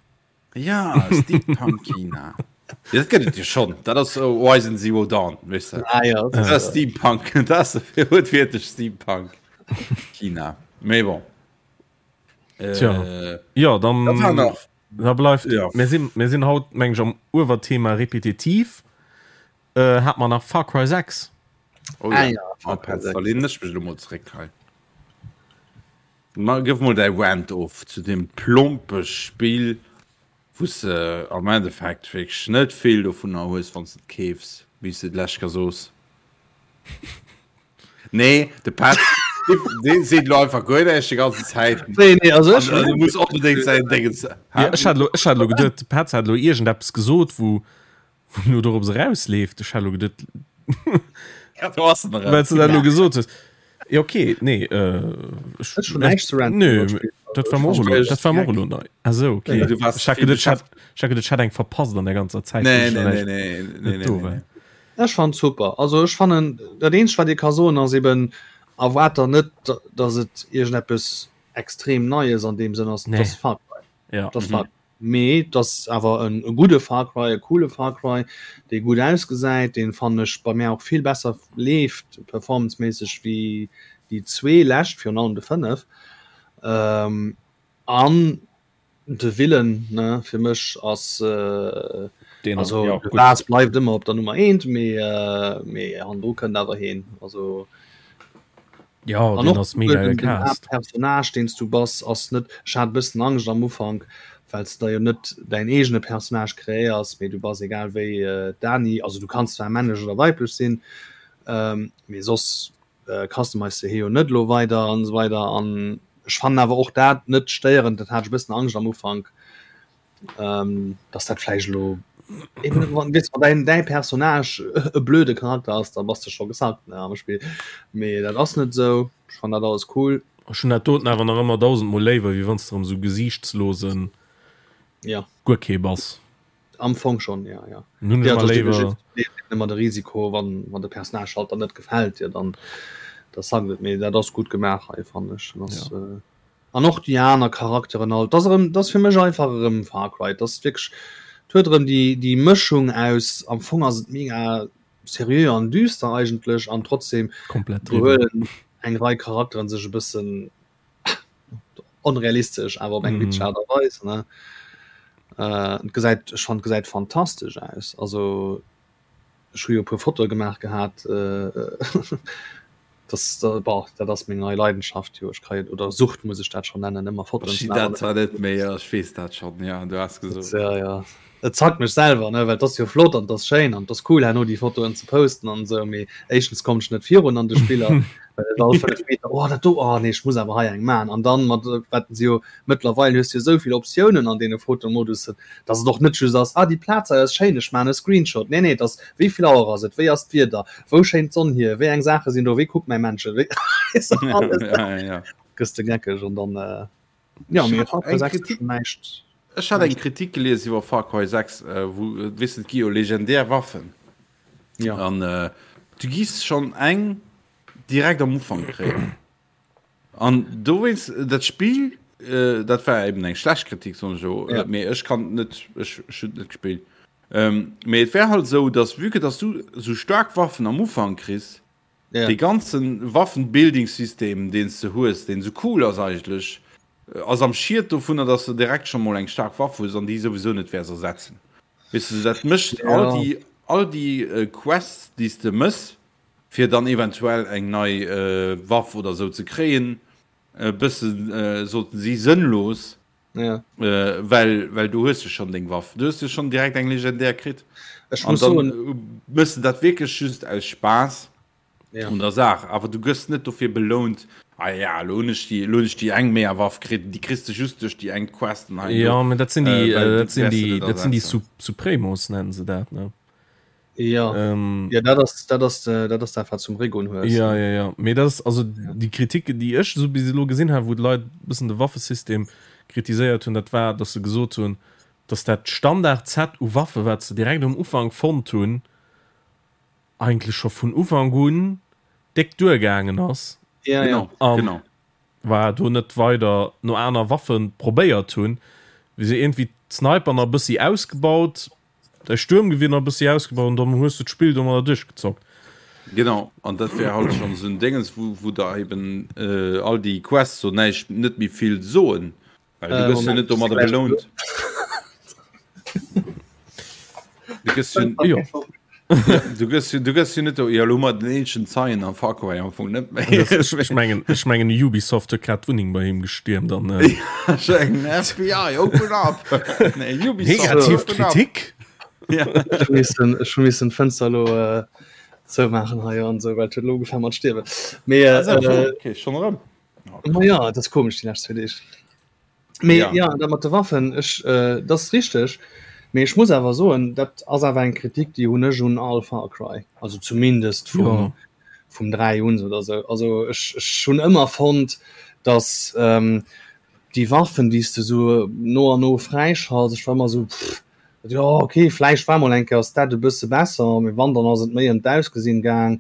Ja Steampunk China. Ja, dat gëtt et jo schon. Dat ass äh, Horizon Zero Dawn weißt du? Ah, ja, dat ass Steampunk. Dat ass huet wierklech Steampunk China. Mee bon. Tja. Äh, Ja, dann dat war nach. Da bleift ja. mir sinn, mir sinn haut meng ech am Uewerthema repetitiv. Äh, hat man nach Far Cry 6. Oh, ah, ja. ja, Far Cry 6. Da lehnen ech mech lo mol zréck hei. Ma gëff mol däi Rant of zu deem plompe Spill, wou s de am Endeffekt wierklech net vill dovunner hues, wann s de et keefs, wéi s de d'lescht Kéier soos. Nee, de Petz. Dee seet elo einfach guer näischt déi ganzen Zäit. Nee, nee, also ech. An, muss onbedéngt säin Déngens. Ja, ech hat elo, ech hat elo geduet, de Petz hat elo iergendeppes gesot, wou, wou elo dorops erausleeft. Ech hat elo geduet, Ja, do ass en erëm. well s de dat elo gesot hues. Ja, okay, nee, äh, ech, Ech hunn näischt ze ranten Nö, iwwer d'Spill. dat war mer och elo, dat war mer och elo nei. Ah sou, okay. Ja, du warst Ech hat vill geduet, ech hat, beschäftegt. ech hat geduet, ech hätt eng verpasst an der ganzer Zäit, wou Nee, ech nee, dann nee, näischt nee, nee, net nee, do nee, war. nee. Ech fannen super. Also ech fannen, dat eenzegt wat ee ka soen ass eben, erwaart der net, datt et iergendeppes extrem Neies an deem Sënn ass. Nee. Et ass Far Cry. Ja. Et ass Far Cry. Mee et ass awer en e gudde Far Cry, e coole Far Cry, dee gutt ausgesäit, deen, fannen ech, bei mär och vill besser leeft performanceméisseg wéi déi zwee lescht, virun allem de 5. An De Willen ne fir mech ass Deen also ja, de gutt. Lars bleift ëmmer op der Nummer eent, mee mee hannendru kënnt awer heen. Also Ja, an deen och ass mega den den gecast. Haaptpersonnage deen s du bass ass net, ech hat e bëssen Angscht am Ufank, well s de der jo net däin eegene Personnage kreéiers, mee du bass egal wéi d'Dani, also du kanns zwar männlech oder weiblech sinn, mee soss Customize de hie jo net elo weider an esou weider an ech fannen awer och dat net stéierend, dat hat ech e bëssen Angscht am Ufank, dass dat vläicht elo eben wann weess wann däin däi Personnage e blöde Charakter ass, da bass de scho gesackt ne am Spill, mee dat ass net esou, ech fannen dat alles cool. Ech hunn dat doten awer nach ëmmer dausendmol léiwer, wéi wann s de erëm esou gesiichtslosen Ja. guer kee bass. Am Fong schon, ja, ja. Nun ja, ëmmer léiwer. Ëmmer de Risiko, wann, wann de Personnage halt dann net gefält dir, dann da sackt et. Mee dat ass gutt gemaach hei, fannen ech. Dat ass, Ja. äh, an och déi aner Charakteren all. Dat ass erëm, dat ass fir mech einfach erëm Far Cry. Dat ass wierklech, et huet erëm déi, déi Mëschung aus, am Fong ass et mega seriö an düster eigentlech an trotzdem Komplett driwwer. behuelen eng Rei Charakteren sech e bëssen onrealistesch awer op eng witzeg Aart a Weis ne äh, et gesäit ech fand gesäit fantastesch aus also ech hu jo e puer Fotoe gemaach gehat äh, das da, boah, dat ass meng nei Leidenschaft jo ech kréien oder Sucht muss ech dat schon nennen ëmmer Fotoen Ech ze sinn maachen. dat zwar net méi, ja, ech weess dat schonn, ja, du has gesot. Ja, ja. Et zackt mech selwer, ne, well 't ass jo flott an 't ass schéin an 't ass cool herno déi Fotoen ze posten an esou, mee éischtens kommen ech net virun an de Spiller, well et all 5 Meter, oh dat do, oh nee ech muss awer hei eng man an dann mat wat se jo mëttlerweil hues du jo esou vill Optiounen an deene Fotomodussen, dass et och net just ass, ah déi Plaz hei ass schéin, ech man e Screenshot, nee nee et ass wéi vill Auer ass et, wéi ass d'Wieder, wou schéint d'Sonn hier, wéi eng Saache sinn do, wéi kuckt mäi Männchen, wéi weess de alles, gëss de geckeg an dann. Ja, Ech mee hat Far Cry eng 6 Kritik, schon näischt. ech hat eng Kritik gelies iwwer Far Cry 6, äh, wou, äh, weess de, et gi jo legendär Waffen. Ja. An äh, du giss schonn eng direkt am Ufank kréien. An dowéinst, dat Spill, äh, dat war eben eng schlecht Kritik, soen ech elo, Ja. äh, mee ech kann net, ech, ech hunn et net gespillt. Ähm, mee et wär halt esou, dass vue que dass du esou staark Waffen am Ufank kriss, Ja. Dee ganzen Waffenbuilding-System, deen s de hues, deen sou cool ass eigentlech, ass am Schied dovunner, dass de direkt scho mol eng staark Waff hues an déi souwisou net wäers ersetzen. Weess de, dat mécht all Ja. déi, all déi Quests, déi s de mëss, fir dann eventuell eng nei Waff oder sou ze kréien, e bësse sollten si sënnlos. Ja. Äh, well, well du hues jo schon deng Waff. Du hues jo schon direkt eng legendär kritt. Ech An muss dann soen, mëss de dat wierklech just aus Spaass ja. un der Saach. Awer du gëss net dofir belount, ah ja, lo hunn ech déi, lo hunn ech déi eng mega Waff kritt, déi kriss de just duerch déi eng Quest an hei an do. Ja, mä dat sinn déi, Äh, well äh, du dat sinn wäers se déi, net dat sinn déi ersetzen. Sup Supremos nennen se dat, ne? Ja. Ähm, Ja, dat ass, dat ass, äh, dat ass dat, wat zum Regon hues. Ja, ne? ja, ja. Mee dat ass, also déi Kritik, déi ech esou bis elo gesinn hat, wou d'Leit e bëssen de Waffesystem kritiséiert hunn, dat war, datt se gesot hunn, datt dat Standard-Set u Waffe, wat se direkt um Ufank fonnt hunn, eigentlech scho vun Ufank un déck duergaangen ass. Ja, ja. Genau, An genau. war do net weider no aner Waffe probéiert hunn, wéi se iergendwéi d'Sniper nach e bëssi ausgebaut, Däi Stuermgewier nach e bëssi ausgebaut an dann hues du d'Spill domadder duerchgezockt. Genau, an dat wär halt schonn esou en Déngens, wou, wou der eben all déi Quests so näischt, net méi vill soen, well du gëss jo net domadder belount. Du gëss jo, Jo. du gëss jo, du gëss jo net do, jo, elo hu mer den eenzegen Zeien am Far Cry am Fong net méi. Das, ech, ech mengen, ech mengen Ubisoft huet grad d'Wunneng bei him gestiermt an äh, Eng FBI, open up! Nee, Ubisoft, negativ open up! Kritik. Ja. Ech hu missen, ech hu missen d'Fënster elo äh, Zoumaachen hei an esou, well et huet elo ugefaangen mat stierwen. Mee äh, Okay, schon erëm. Ma ja, dat ass komesch déi lescht zwee Deeg. Mee Ja. ja, dat mat de Waffen, ech, äh, dat ass richteg. Mee ech muss awer soen, dat ass awer eng Kritik, déi hunn ech un all Far Cry, also zumindest vum, Ja. vum 3 un oder sou. Also ech, ech hunn ëmmer fonnt, datt ähm, déi Waffen, déi s de sou no an no fräischalts, ech war ëmmer sou, pff, Jo ok, vläicht war mol eng Kéier ass dat e bësse besser, mee wann dann ass et méi ëm d'Ausgesinn gaang,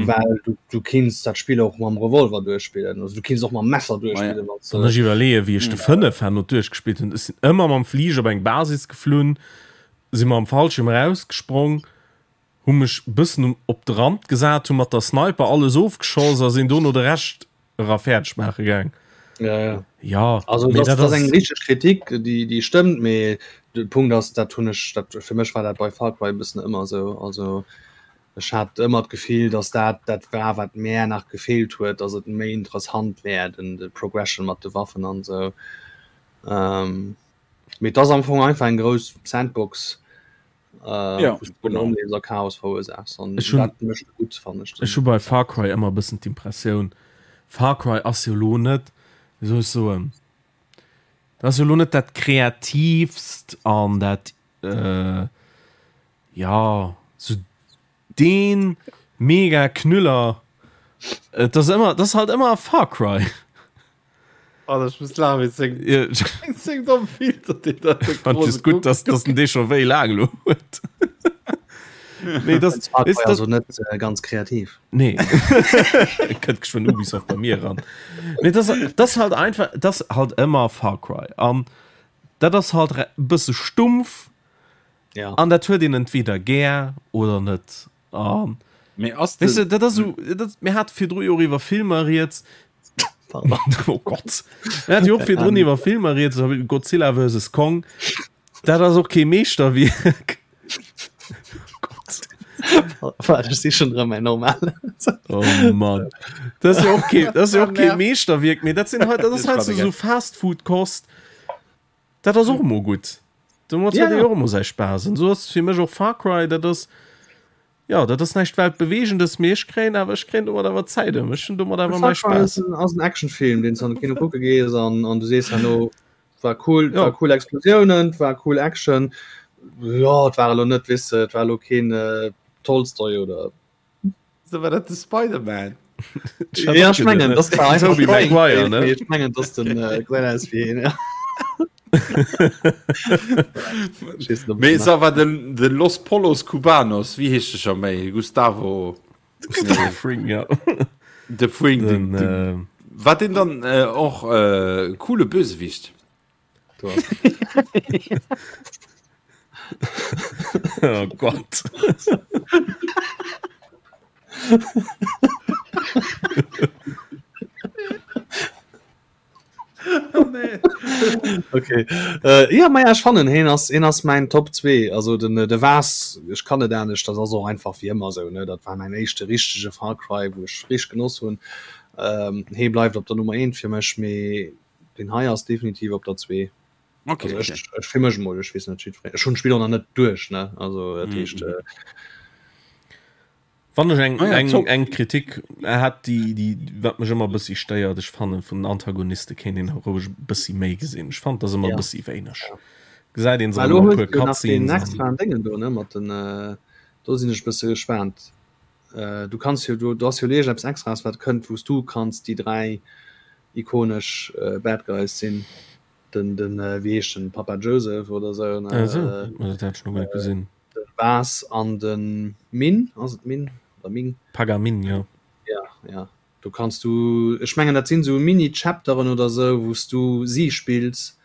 well du du kinns dat Spill och mam Revolver duerchspillen, also du kinns och mam Messer duerchspillen wann s Wann ech iwwerleeë wéi ech de 5 herno duerchgespillt hunn, ech sinn ëmmer mam Fliger op eng Basis geflunn, si mam Fallschierm erausgesprong, hu mech bëssen um op de Rand gesat, hu mat der Sniper alles ofgeschoss a sinn dono de Rescht era fäerdeg maache gaang. Ja, ja. Ja, also mee dat, dat dat ass ass eng richteg Kritik, déi déi stëmmt, mee de Punkt ass, dat hunn ech, dat fir mech war dat bei Far Cry e bëssen ëmmer esou. Also ech hat ëmmer d'Gefill, datt dat dat war, wat mär nach gefeelt huet, datt et méi interessant wär, den de Progression mat de Waffen an esou. Ähm, mee et ass am Fong einfach eng grouss Sandbox. Äh, Ja, wou s du genau. ronderëm a Chaos verursaachs an Ech hunn- dat mécht gutt, fannen ech. Ech hu bei Far Cry ëmmer e bëssen d'Impressioun, Far Cry ass jo lo net, wéi soll ech soen, dat ass jo lo net dat kreatiivst an dat, äh, ja, sou dee mega Knüller. Et ass ëmmer, dat ass halt ëmmer Far Cry. Alter, ich muss lachen, wéi seng, seng domm Filter, déi da de Fand just gutt, dass, dass den dee scho wéi laang lo huet. Nee, das, Das war ist das, also net äh, ganz kreativ. Nee. Kënnt geschwënn Ubisoft bei mir ran. Nee, das, das halt einfach, das halt ëmmer Far Cry. An dat ass halt e bësse stumpf. Ja. An dat huet een entweder gär oder net. An Mee ass Weißt de, du, dat ass so, dat, mir hat virdru jo och iwwer Filmer rieds. Pardon. Oh Gott. Mir hat jo och virdrun iwwer Filmer rieds, Godzilla vs. Kong. Dat ass och kee Meeschterwierk. Gott. Warte, ech si schon erëm mäin normal. Oh Mann. Dat ass jo och kee, dat ass jo och kee Meeschterwierk, mee dat sinn halt, dat ass halt so, so Fast-Food-Kost. Dat ass och emol gutt. Domat huet ee Ja. och emol säi Spaass. An esou ass fir mech och Far Cry, dat ass, jo, dat ass näischt Weltbewegendes, mee ech kréien awer, ech kréien domat awer Zäit ëm. Ech hunn domat awer mäi Far Cry ass Spaass. en, ass en Actionfilm, deen s du an de Kino kucke gees an, an du sees herno, war cool, Ja. war cool Explosiounen, war cool Action. Jo, et war elo net, weess de, et war elo keen äh, Tolstoi oder So war dat de Spider-Man. Ja, ich mengen das war einfach Tobey Maguire, ne? Ich mengen dass den äh, gesäit aus wéi een, ja. Ich weess net, ob Mee ich sa war den, den Los Pollos Cubanos, wéi heescht de scho méi? Gustavo. Gustavo Fring, ja. De Fring, Den, den, den, äh, war den dann äh, och äh, coole Bösewicht? Oh Gott. Oh, nee. Okay. Äh, ja, ma ja, ech fannen heen ass heen ass mäin Top 2. Also den äh, de Vaas, ech kann net anescht, dat ass och einfach wéi ëmmer sou ne. Dat war mäin éischte richtege Far Cry, wou ech richteg genoss hunn. Ähm, hee bleift op der Nummer 1 fir mech, mee Den hei ass definitiv op der 2. Okay, also okay. Ech, ech fir mech mol, ech weess net jiddwereen. Ech hunn d'Spill och nach net duerch, ne? Also dat heescht. Mhm. Äh, Wann ech eng, Ah ja, eng, top. eng Kritik hat, déi, déi, wat mech ëmmer e bëssi stéiert, ech fannen, vun den Antagoniste kéint een och roueg e bëssi méi gesinn. Ech fand, dat ass ëmmer e Ja. bëssi wéineg. Gesäit een se Mä elo ëmmer e hues puer du jo nach deen Cutscenes an. extraen Déngen do, ne? Mat den, äh, do sinn ech e bësse gespaant. Äh, du kanns jo, du, du ass jo elo iergendeppes Extraes, wat kënnt, wou s du kanns déi 3 ikonesch Bad Guys sinn, den den wéi heescht den Papa Joseph oder sou ne, Ah sou, ma dat hat ech nach guer net gesinn. den Vaas an den Min, ass et Min oder Ming? Pagamin, jo. Ja, ja, do kanns du, ech mengen dat sinn sou Mini-Chapteren oder sou, wou s du si spills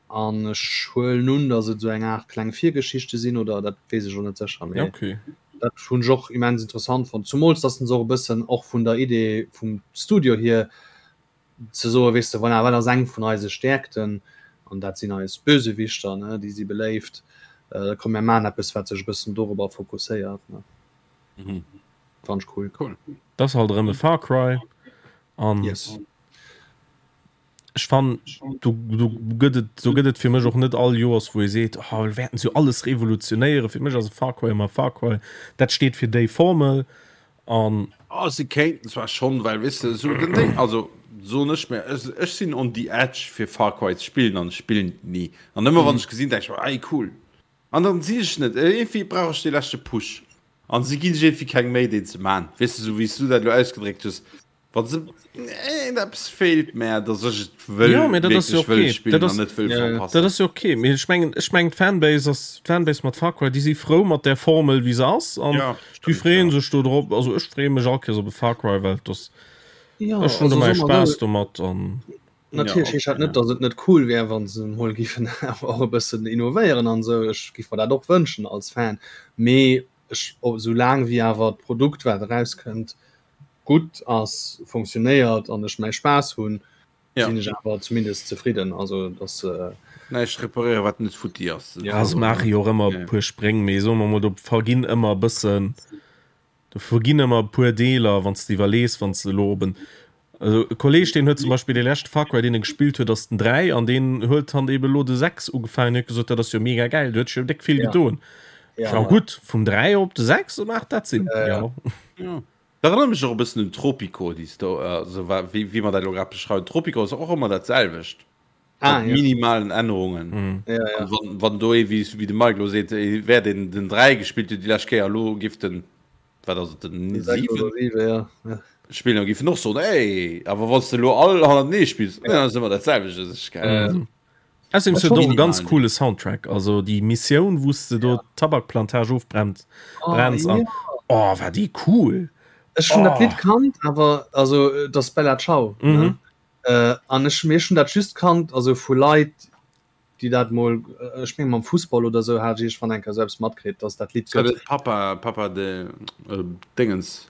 an ech huelen un, datt et sou eng Aart kleng Virgeschichte sinn oder dat weess ech elo net sécher, mee Okay. dat hunn ech och immens interessant fonnt, zumools datt se och e bëssen och vun der Idee vum Studio hier ze soen, weess de, voilà, wat ass eng vun eise Stäerkten an dat sinn eis Bösewichter, ne, déi si beléift, komm mir maachen eppes wat sech e bëssen dorobber fokusséiert, ne. Mhm. Fand ech cool. Cool. Dat ass halt erëm e Far Cry an Yes. Ech fannen, do, do gëtt et, do gëtt et fir mech och net all Joers, wou ee seet, oh, mir wäerten se jo alles revolutionéieren. Fir mech ass e Far Cry ëmmer e Far Cry. Dat steet fir déi Formel an. Oh, se kéinten zwar schonn, well weess de, esou den Ding, also soen ech mir, ech, ech sinn on the edge fir Far Cry ze spillen an ech spillen et ni. An ëmmer wann ech gesinn, denk ech mer, ey cool. An dann sinn ech net, iergendwéi brauch ech dee leschte Push. An si ginn sech iergendwéi keng Méi deen ze man. Weess de, esou wéi s du dat elo ausgedréckt hues, Wann se eppes feelt mär, dass ech et wëll, Jo, mee dat ass jo wierklech wëll okay. spillen Dat an ass, net wëll Ja, ja. dat verpassen. ass jo okay. Mee ech mengen, ech mengen d'Fanbase ass, d'Fanbase mat Far Cry, déi si frou mat där Formel wéi se ass an Ja, déi stimmt, freeën ja. sech do drop. Also ech freeë mech all Kéiers op e Far Cry, well et ass, Ja, ech hunn also do mäi soe mer Spaass esou, domat an. Ja, natierlech heescht okay, dat net, ja. datt et net cool wär, wa se emol giffen awer och e bëssen innovéieren an esou. Ech giff mer dat och wënschen als Fan, mee ech, soulaang wéi awer d'Produkt, wat erauskënnt, gutt ass, funktionéiert an ech mäi Spaass hunn, Ja. sinn ech awer zumindest zefridden. Also dass äh, Näischt reparéieren, wat net futti ass. Ja, se maache jo och ëmmer e puer Spréng, mee soe mer mol, do verginn ëmmer e bëssen, do verginn ëmmer e puer Deeler, wann s de iwwerlees, wann s de elo op en, also e Kolleeg, deen huet zum Beispill dee leschte Far Cry, deen e gespillt huet, ass den 3 an deen huet dann ebe elo de 6 ugefaangen, huet gesot, dat ass jo mega gäil, do huet sech jo déck vill Ja. gedoen. Ja, Ja gutt, vum 3 op de 6 maacht dat Sinn, Ja, ja. jo. Ja. Dat erënnert mech och e bëssen un Tropico, déi Sto also wa wéi wéi mer dat elo grad beschreiwen. Tropico ass och ëmmer dat selwecht Ah, mat ja. minimalen Ännerungen. Mhm. Ja, ja. An wann wann do ee wéi wéi de Mike elo seet, ee wär deen den 3 gespillt huet déi lescht Kéier, elo giff den, wat ass et, den Den 6 7 oder 7, ja. Ja. spillen, da giff en och soen, Ey! Awer wann s de elo all hannertenee spills, ja, ass ëmmer dat selwecht, dat ass geil. Mhm. Außerdem Ech huet och e hoffen, ganz Minimalen. coole Soundtrack, also déi Missioun wou s de do d'Tabakplantage ofbrennt Oh, brenns an ja. oh war déi cool. Ech hunn dat Oh. Lidd kannt, awer also et ass Bella Ciao, ne? Mhm. Äh, an ech mir hunn dat just kannt, also vu Leit, déi dat mol, ech meng mam Fussball oder sou hat ech iergendwann eng Kéier sou eppes matkritt, dass dat Lidd War gëtt. dat Papa Papa de Déngens?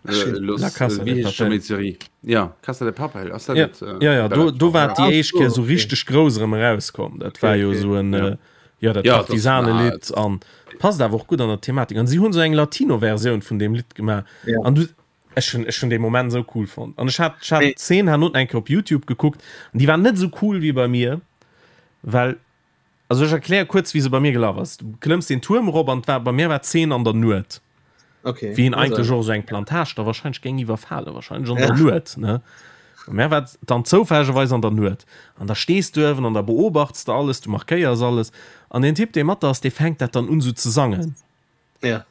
La Casa de Papel. Ja, Casa de Papel, ass dat Ja, net, äh, ja, ja, do, do war Ah, déi éischt so, Kéier sou okay. richteg grouss erëm erauskomm. Dat war Okay, jo okay. sou en, Ja. äh, ja, dat Ja, das- Partisanelidd an passt awer och gutt an der Thematik. An si hunn sou eng Latino-Versioun vun deem Lidd gemaach. Ja. An du, ech hunn, ech hunn dee Moment sou cool fonnt. An ech hat, ech hat Nee. d'Zeen herno eng Kéier op YouTube gekuckt an déi war net sou cool wéi bei mir, well Also ech erkläre kuerz wéi se bei mir gelaf ass. Du klëmms den Tuerm erop an war bei mir war d'Zeen an der Nuet. Okay. Wéi een eigentlech och esou eng Plantage da wahrscheinlech géing iwwerfalen, wahrscheinlech an der Nuet, ne? Bei mär war et dann zoufällegerweis an der Nuet. An da stees du uewen an da beobachts de alles, du markéiers alles an deen Typ dee mat der ass, dee fänkt dat dann un esou ze sangen. Ja.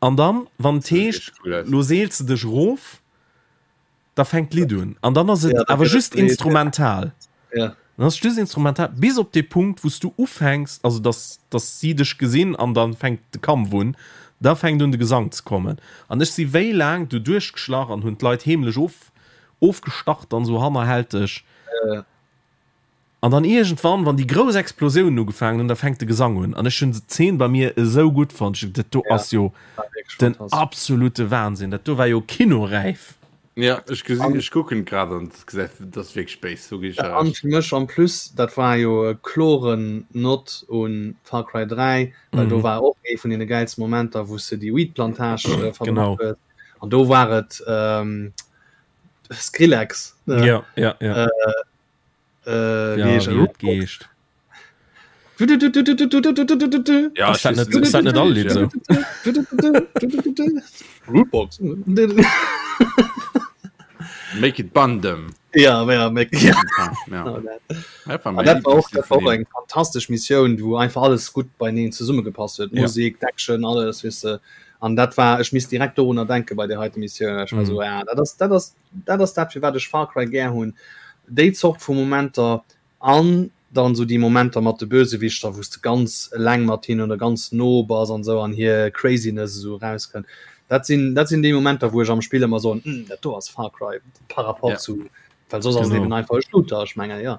An dann wann et heescht, lo seels de dech erof, da fänkt d'Lidd un an dann ass et Ja, da awer gëtt et just breet, ja. instrumental. Ja. Dann ass et just instrumental bis op dee Punkt, wou s du ufänks, also dass, dass si dech gesinn an dann fänkt de Kampf un, da fänkt un de Gesang ze kommen. An ech si wéi laang do duerchgeschlach an hunn d'Leit heemlech of, ofgestach dann esou hannerhälteg. Ja. An dann iergendwann, wann déi grouss Explosiounen ugefaangen hunn, da fänkt de Gesang un. An ech hunn d'Zeen bei mir esou gutt fonnt. Ech hunn dat do Ja, ass jo war wierklech den fantastesch. absolute Wahnsinn. Dat do war jo kinoräif. Ja, ech gesinn, ech kucken grad an dat gesäit, dat ass wierklech béis, do ginn ech der An Recht. fir mech en plus, dat war jo e kloren Nod un Far Cry 3, well do war och ee vun deene gäilste Momenter, wou s de déi Weed-Plantage verbrannt Genau. hues. An do war et Skrillex, ne? Ja, ja, ja. Äh, Ja, wie heescht wéi er? et geescht. Ja, Ass dat net, ass dat net all Lidd esou? Rootbox. Make it Bundem. Ja, ja, make, ja. Ja. Oh, dat. Dat war An mein dat war och, dat war och Lieblingslied vun eng fantastesch Missioun, wou einfach alles gutt beineen zesummegepasst huet. Ja. Musek, d'Action, alles, weess de. An dat war, ech misst direkt dorunner denke bei där heite Missioun. Ech war Mhm. so, ja, dat ass, dat ass Dat ass dat firwat ech Far Cry gär hunn, déi Zort vu Momenter an dann esou déi Momenter mat de Bösewichter wou s de ganz eleng mat hinnen oder ganz no bass an esou an hir Craziness esou erauskënnt. Dat sinn dat sinn déi Momenter wou ech am Spill ëmmer soen, hm dat do ass Far Cry par rapport Ja. zu well soss ass et Genau. eben einfach e Shooter, ech mengen jo.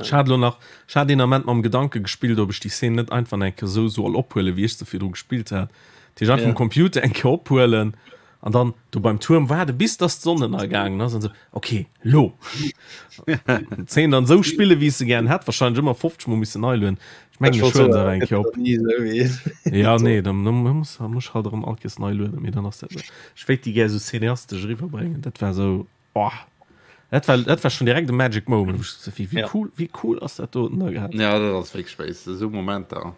Ech hat elo nach, ech hat een Ament mam Gedanke gespillt, ob ech déi Szene net einfach eng Kéier esou soll ophuelen, wéi ech se virdru gespillt hat. Dat heescht einfach Ja. um Computer eng Kéier ophuelen an dann do beim Tuerm waarde bis dass d'Sonn ënnergaangen ass an esou, ok, lo! D'Szene dann esou spillen, wéi ech se gären hätt, wahrscheinlech ëmmer 50 mol missen nei lueden. Ech mengen, ech huelen se awer eng Kéier op. Ja, nee, dann muss muss ech halt erëm all Kéiers nei lueden, mee dann ass dat esou. Ech wéilt déi gär esou cineastesch eriwwerbréngen. Dat war esou, oh! Dat war, dat war schon direkt e Magic Moment, wou ech so, wéi, wéi ja. cool, wéi cool ass dat do da gehabt. Ja, dat ass wéi Space, esou Momenter.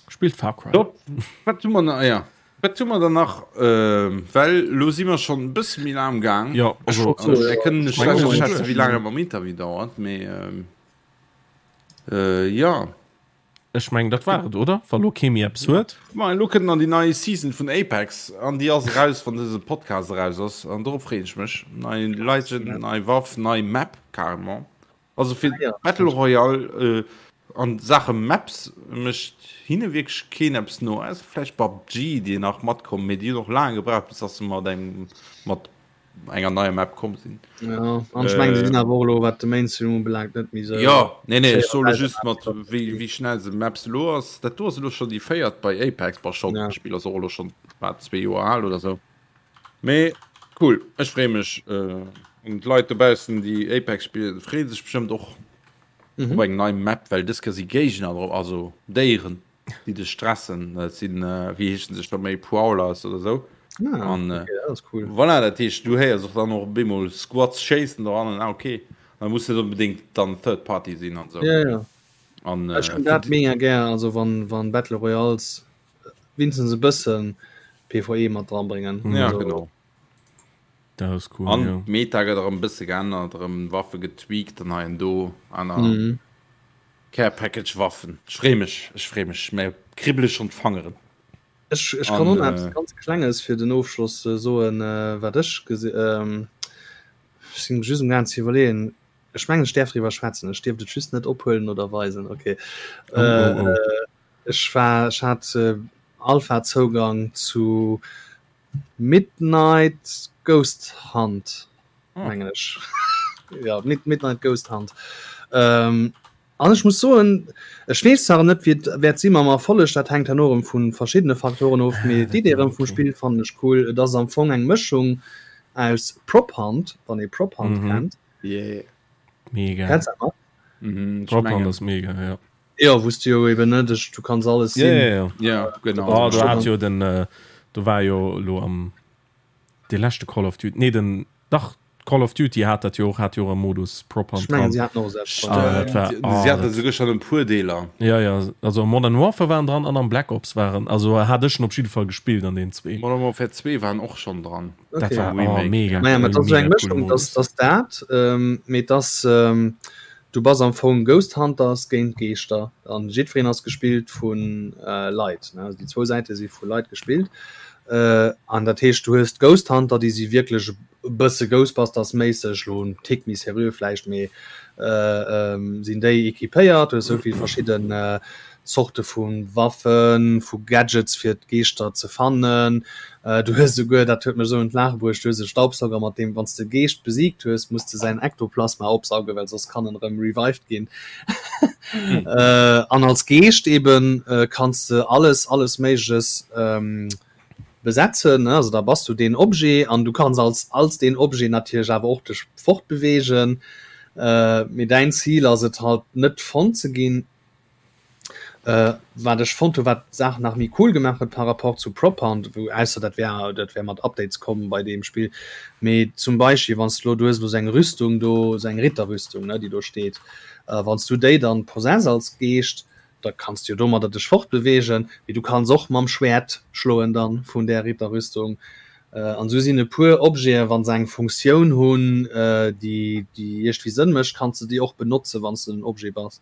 Spillt Far Cry. Top. Wat hu mer nach? Ja. Wat hu mer dann nach? Äh, well lo si mer schon e bësse méi laang am Gaang. Ja, also, also, mir kënnen net schlecht aschätzen, wéi laang et mam Interview dauert, mee ähm, äh, ja. Ech mengen dat war et, oder? Wa lo kee méi eppes huet. Ma elo kënnt nach déi nei Season vun Apex an déi ass eraus wann dëse Podcast eraus ass an dorop freeën ech mech. Nei Legend, nei Waff, nei Map carrément. Also fir ah, ja. Battle Royale äh, an Saache Maps mécht hinne wierklech keen eppes no. Also vläicht PUBG, déi nach matkommen, mee déi hunn och laang gebraucht bis dass se mat engem mat enger neier Map komm sinn. Ja, an ech mengen, se sinn awer och elo, wat de Mainstream ubelaangt, net méi esou. Jo, nee, nee, ech soe just mat wéi, wéi schnell se Maps elo ass. Dat do ass elo schonn déi véiert bei Apex, bon schonn, ja. D'Spill ass och elo schonn wat zwee Joer al oder sou. Mee cool, ech freeë mech. Äh, an d'Leit dobaussen, déi Apex spillen, freeë sech bestëmmt och mhm. op eng nei Map, well dës Kéier si Géigner drop, also Déieren. déi dech stressen, dat sinn, wéi heeschen se scho méi, Prowlers oder sou. Ah, an, okay, dat ass cool. Voilà, dat heescht, du héiers och dann och op eemol Squads schéissen doran an ah, okay. Da muss net onbedéngt dann Third Party sinn an sou. Ja, ja. An, Ech hunn dat mega gär, also wann, wann Battle Royales wéinstens e bëssen PvE mat dran bréngen. Ja, also, genau. Dat ass cool, An ja. d'Meta gëtt erëm e bësse geännert, erëm Waffe getweakt an hei an do aner. Mhm. Care Package Waffen. Ech free mech, ech free mech, mär kribbele schon d'Fangeren. Ech, ech kann och nach eppes ganz Klenges fir den Ofschloss soen, wat ech gesi, ech sinn just am gaang ze iwwerleeën, ech mengen ech däerf driwwer schwätzen, ech dierft et just net ophuelen oder weisen, ok. Oh, oh, oh. Ech war, ech hat Alpha-Zougang zu Midnight Ghost Hunt. mengen ech ja Mid Midnight Ghost Hunt ähm, an ech muss soen ech weess zwar net wéi et wäert si mam Erfolleg dat hänkt herno erëm vu verschiddene Faktoren of mee d'Idee erëm vum Spill fannen ech cool et ass am Fong eng Mëschung aus Prop Hunt wann ee Prop Hunt mhm. kennt yeah. mega Kennst du dat? Mhm, Prop Hunt ass mega ja Ja wou's du jo eben net du kanns alles sinn ja, ja, ja. ja genau oh, du hat jo den äh, du war jo lo am De leschte Call of Duty, nee den, dach Call of Duty hat dat jo och, hat jo och e Modus Prop Hunt Ech mengen dran. si haten och selbst Ah, dat war, Si oh, haten dat, esouguer schonn en puer Deeler. ja, ja, also am Modern Warfare waren dran an am Black Ops waren, also hat ech en op jidde Fall gespillt an den zwee. Modern Warfare 2 waren och schonn dran. Dat Okay. war, Am oh, Remake. mega, Naja, mä et ass esou mega eng coole Mëschung, dass Modus. dass dat, mee et ass, Du bass am Fong Ghost Hunters géint Geeschter an jiddwereen ass gespillt vu Leit. Also déi zwou Säite si vu Leit gespillt. An dat heescht du hues d'Ghost Hunter, déi si wierklech e bësse Ghostbusters-méisseg, lo en Tick méi seriö vläicht, mee sinn déi equipéiert. Du hues esou vill verschidden Zorte vu Waffen, vu Gadgets fir d'Geeschter ze fannen. Du hues esouguer, dat huet mech esou un d'Laache bruecht, du hues e Staubsauger mat deem wann s de e Geescht besiegt hues, muss de säin Ektoplasma opsaugen, well soss kann en erëm revived ginn. An als Geescht eben kanns de alles, alles Méigleches besetzen, ne, also da bass du deen Objet an du kanns als als deen Objet natierlech awer och dech fortbeweegen. Mee däin Zil ass et halt net fonnt ze ginn. Wat ech fonnt hu wat d'Saach nach méi cool gemaach huet par rapport zu Prop Hunt, wou ausser dat wär dat wär mat Updates komm bei deem Spill, mee zum Beispill wann s de elo, du hues elo sou eng Rüstung do, sou eng Ritterrüstung ne déi do steet, wann s du déi dann possess als Geescht, da kanns du jo domadder dech fortbeweegen, mee du kanns och mam Schwäert schloen dann vun där Ritterrüstung. An esou sinn e puer Objeten, wa se eng Funktioun hunn déi déi iergendwéi Sënn mécht, kanns de déi och benotzen, wann s de den Objet bass.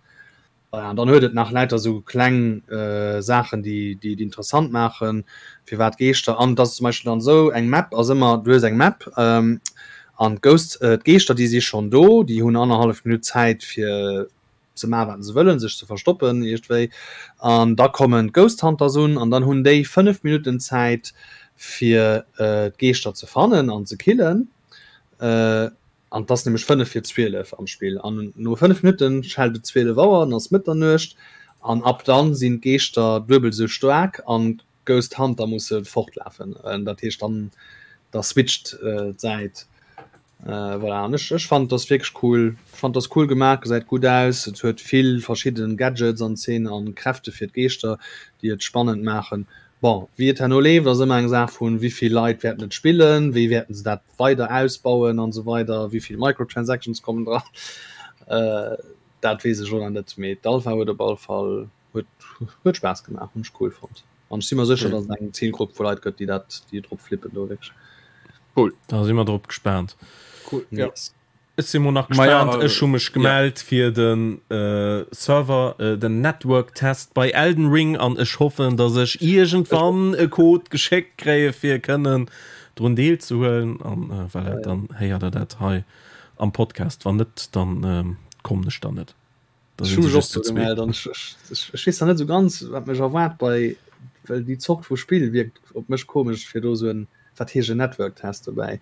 An dann huet et nach lauter esou kleng Saachen, déi déi et interessant maachen, firwat Geeschter. An et ass zum Beispill dann esou, eng Map ass ëmmer, du hues eng Map an d'Ghosts, d'Geeschter, déi si schonn do, déi hunn annerhallef Minutt Zäit fir ze maachen, wat se wëllen, sech ze verstoppen iergendwéi. An da kommen d'Ghost Hunters un an dann hunn déi 5 Minutten Zäit fir d'Geeschter ze fannen an ze killen. An et ass nämlech 5 vir 12 am Spill. An no 5 Minutten schellt et 12 Auer, dann ass Mëtternuecht. An ab dann sinn d'Geeschter duebel esou staark an d'Ghost Hunter musse fortlafen. Dat heescht dann da switcht d'Säit. Voilà, an ech ech fannen et ass wierklech cool. Ech fannen et ass cool gemaach, gesäit gutt aus. Et huet vill verschidden Gadgets an Szenen an Kräfte fir d'Geeschter, déi et spannend maachen. Bon, wéi et herno leeft, ass ëmmer eng Saach vun, wéi vill Leit wäerten et spillen, wéi wäerten se dat weider ausbauen an esou weider, wéi vill Microtransactions kommen dran. Dat weess ech elo nach net, mee d'Alpha huet op alle Fall huet huet Spaass gemaach, hunn ech cool fonnt an ech si mer sécher, datt et eng Zilgrupp vu Leit gëtt, déi dat déi drop flippen do wierklech. Cool. Da si mer drop gespaant. Cool, ja. Yes. Ech si mo nach gespaant. Ech hu mech gemellt fir de Server, den Network Test bei Elden Ring an ech hoffen, datt ech iergendwann e Code geschéckt kréie fir kënnen drun deelzehuelen an voilà, dann héiert der dat hei am Podcast. Wann net, dann kommen ech dann net. Da sinn se just zu zwee. Ech weess nach net esou ganz, wat mech erwaart bei, well déi Zort vu Spill wierkt op mech komesch, fir do esou en, wat heescht en Network Test dobäi?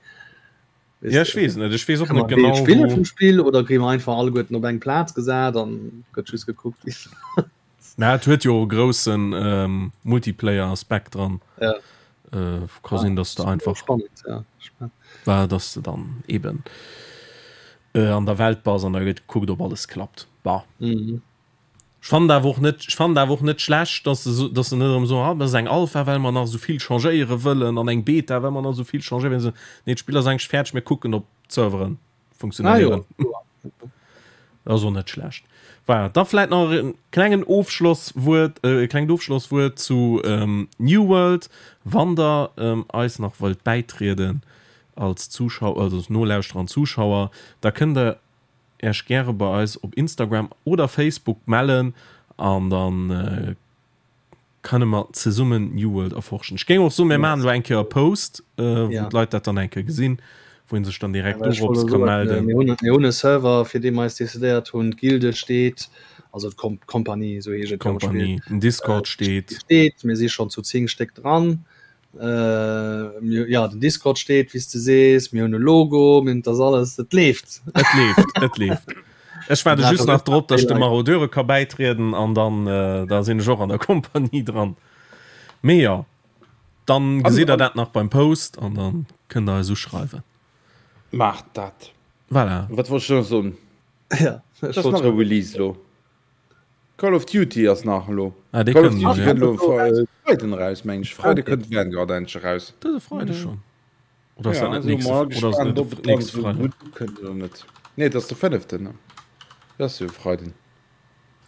Ja, ech weess net, ech weess och net genau. Spiller vum Spill oder kréie mer einfach alleguerten op eng Plaz gesat an gëtt just gekuckt wéi. Na, et huet jo e groussen Multiplayer-Aspekt dran. Ja. Ka sinn, dass de einfach. Spannend, ja. War, dass de dann eben an der Welt bass an da gëtt gekuckt, ob alles klappt. Bah. Mhm. Ech fannen awer och net, ech fannen awer och net schlecht, dass se, dass se net erëm soen, ah, dat ass eng Alpha, well mer nach esou vill changéiere wëllen an eng Beta, well mer nach esou vill changéiere wëllen. Nee, d'Spill ass eigentlech fäerdeg, mir kucken, ob d'Serveren funktionéieren. Ah, jo. Dat ass och net schlecht. Voilà, da vläit nach e klengen Ofschlosswuert, e klengt Ofschlosswuert zu New World. Wann der eis nach wëllt bäitrieden als Zuschauer, also als Nolauschterer an Zuschauer, da kënnt der Äech gäre bei eis op Instagram oder Facebook mellen an dann kënne mer zesummen New World erforschen. Ech géing och soen, mir maachen elo eng Kéier e Post, wou d'Leit dat dann eng Kéier gesinn, wou ee sech dann direkt dorops ka melden. Mir hunn e Server, fir dee mer eis decidéiert hunn. D'Gilde steet, also d'Kompanie, esou heescht et jo am Spill. D'Kompanie, den Discord steet. Steet, mir si schonn zu 10 Stéck dran. Äh, ja, den Discord steet, wéi s de sees, mir hunn e Logo, mir hunn das alles, et leeft. Et leeft, et leeft. Ech waarde just nach drop, datt ech de Marodeure ka bäitrieden an dann äh, da sinn ech och an der Kompanie dran. Mee jo, dann gesitt der dat nach beim Post an dann kënnt der eis uschreiwen. Maacht dat. Voilà. Wat wollt ech nach soen? Ja, ech wollt. Ass nach e Release lo. Call of Duty ass nach elo. Ah, dee Call of kënnt Duty ja. kënnt elo Freiden eraus, meng ech. Freide kënnt Vanguard endlech eraus. Dëse Freide schonn? Oder ass Ja, dat net also nächste, mal oder ass gespannt, net ob et dann nächste esou Freide? gutt ukënnt oder net. Nee, et ass de fënneften, ne? Dat ass jo e Freiden.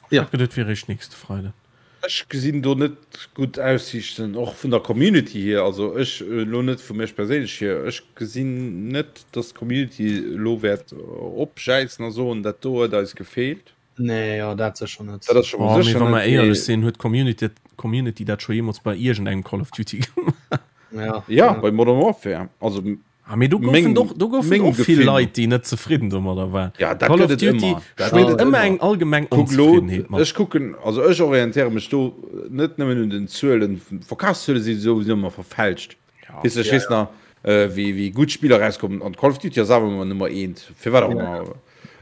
Ja. Ech geduet, et wier eréischt nächste Freiden. Ech gesinn do net gutt Aussiichten, och vun der Community hier. Also ech, elo net vu mech perséinlech hier, ech gesinn net, dass d'Community elo wäert opjäizen a soen, dat do huet eis gefeelt. Nee, jo, dat sécher net. Dat ass scho mol Oh, mee sécher wa mer net, éierlech mee. sinn, huet d'Community, d'Community dat scho jeemools bei iergendengem Call of Duty gemaach? Ja, Ja, bei Modern Warfare. Also Ah, mee do goufen meng, och, do goufen mengem och vill Gefill no. Leit, déi net zefridden domadder waren. Ja, dat Call of gëtt et Duty ëmmer. Dat gëtt schwéngt et ëmmer ëmmer. eng allgemeng Kuck elo, Onzefriddenheet mat. ech kucken, also ech orientéiere mech do net nëmmen un den Zuelen, Verkafszuele si souwisou ëmmer verfälscht. Ja. Weess de, ech Ja, weess nach, wéi, wéi gutt Spiller erauskommen an Call of Duty ass awer ëmmer Nummer eent, firwat och Ja. ëmmer.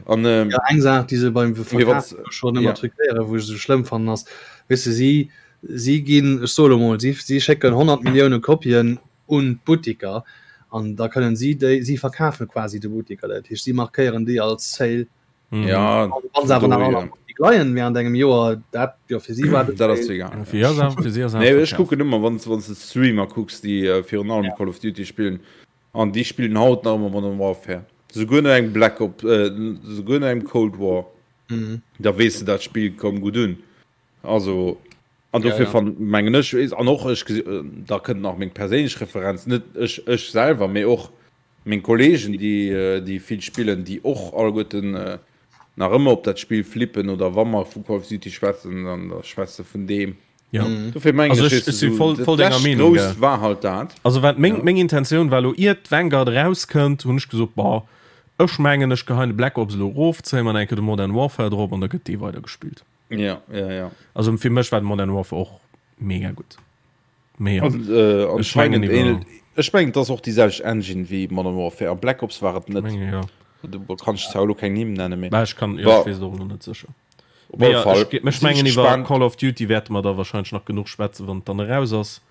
An, ähm, Ja, eng Saach, déi se beim mee Verkaf wann s, schonn ëmmer ja. truquéieren, wou ech esou schlëmm fannen, ass, weess de, si, si ginn, ech soe lo mol, si, si schécken 100 Millioune Kopien un d'Buttiker an da kënnen si déi, si verkafe quasi de Buttiker, dat heescht si markéieren déi als Sale. Mhm. Ja, Wann se awer nach an Buttik leien während engem Joer, dat jo fir si war dat ass egal. Fir si ass fir si ass Nee, ech kucken ëmmer wann wann s de Streamer kucks, déi äh, virun allem ja. Call of Duty spillen an déi spillen haut nach ëmmer Modern Warfare. Souguer no engem Black Op äh, souguer no engem Cold War. Mhm. Da weess de dat Spill koum gutt un. Also an dofir ja, ja. fan mengen ech an och ech da kënnt nach meng perséinlech Referenz net ech ech selwer mee och meng Kollegen déi déi vill spillen déi och alleguerten nach ëmmer op dat Spill flippen oder wa mer vu Call of Duty schwätzen dann da schwätze vun deem. Ja. Mhm. Dofir mengen Also ech, ech, weess ech du, si voll, dat voll denger lescht Meenung, Grousst gell. war halt dat. Also wat meng, Ja. meng Intentioun war elo iert Vanguard erauskënnt, hunn ech gesot, boah, ech mengen ech geheien de Black Ops elo erof, zéie mer eng Kéier de Modern Warfare drop an da gëtt dee weider gespillt. Ja, ja, ja. Also fir mech war de Modern Warfare och mega gutt. Mee ja, An, äh, ech mengen anscheinend iwwer ähnelt, ech mengen, et ass och déi selwecht Engine wéi Modern Warfare. A Black Ops war et net. menge ja. Do kann ech zwar elo keng Nimm nennen, mee Bah, ech kann, ja, bah, ech weess et och elo net sécher. op Mee alle ja, Fall ech, ech sinn ech mengen iwwer gespaant. Call of Duty wäerte mer da wahrscheinlech nach genuch schwätzen, wann et dann eraus ass.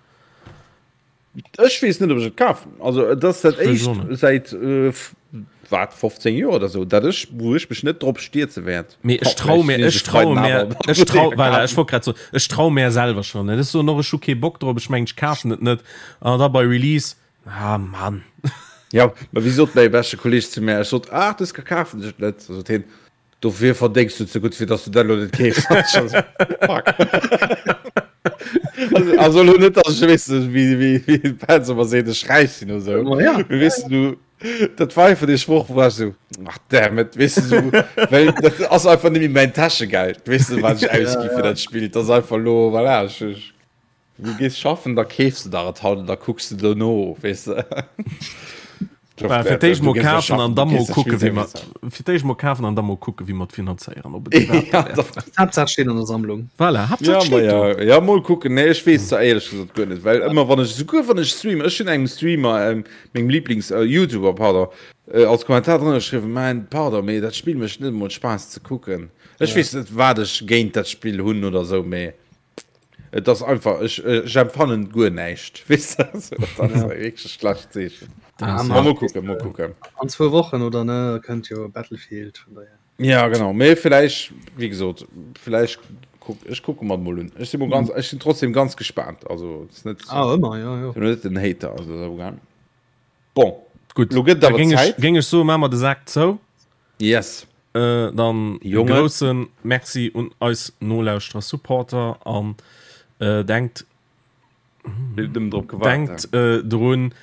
Ech weess net, ob ech et kafen. Also et ass dat éischt säit äh, wat 15 Joer oder sou, dat ech wou ech mech net drop stierze wäert. Mee ech trau mir ech trau mir ech trau voilà, ech wollt grad soen ech trau mär selwer schon net. Ech soen och ech hu kee Bock drop, ech mengen ech kafen et net an da bei Release ah Mann. Ja, ma wéi sot mäi beschte Kolleeg zu mär, ech sot ach dës kafen ech et net, sot hien, Dofir verdéngs du ze gutt, fir dass du dat elo net keefs. Fuck. Also, also elo net, dass ech, weess de, wéi, wéi, wéi d'Fans ëmmer seet, ech räich sinn oder sou. Ma ja. Mee weess du, dat war einfach dee Sproch, wou war ech sou, ach damn it, weess du, sou, well dat ass einfach net méi mäin Täschegeld, weess du, wat ech ausgi fir dat Spill. Dat ass einfach elo, voilà, ech, ech. Du gees schaffen, da keefs de der et haut an da kucks de dono, weess de. Fir d'éischt mol kafen an da mol kucke wéi mer fir d'éischt mol kafen an da mol kucke wéi mer et finanzéieren ob et iwwerhaapt ja, dat wäert. Haaptsaach steet an der Sammlung. Voilà, Haaptsaach ja, steet do. Ja, ja, mol kucken. Nee, ech weess zwar éierlech gesot guer net, well ëmmer wann ech souguer wann ech streamen, ech hunn engem Streamer, ähm, mengem Lieblings äh, YouTuber, pardon, äh, als Kommentar drënner geschriwwen, man, pardon, mee dat Spill mécht net emol Spaass ze kucken. Ech ja. weess net, wat ech géint dat Spill hunn oder sou, mee Et ass einfach, ech, ech empfannen guer näischt. Weess de, also, dat ass ja. wierklech e schlecht Zeechen. Ah, ma mol kucken, mol kucken. An zwou Wochen oder ne kënnt jo Battlefield vun daher. Ja genau, mee vläicht, wéi gesot, vläicht kuck, ech kucke mer mol un. Ech si mol ganz, ech sinn trotzdem ganz gespaant. Also et ass net, ah, ëmmer, ja, ja. Sinn net den Hater, also dat awer. Bon, Gutt, lo gëtt et awer Zäit. Géing ech soen, maache mer de Sak zou. Yes. Äh, dann e grousse Merci un eis Nolauschterer, Supporter an äh, denkt denkt äh, drun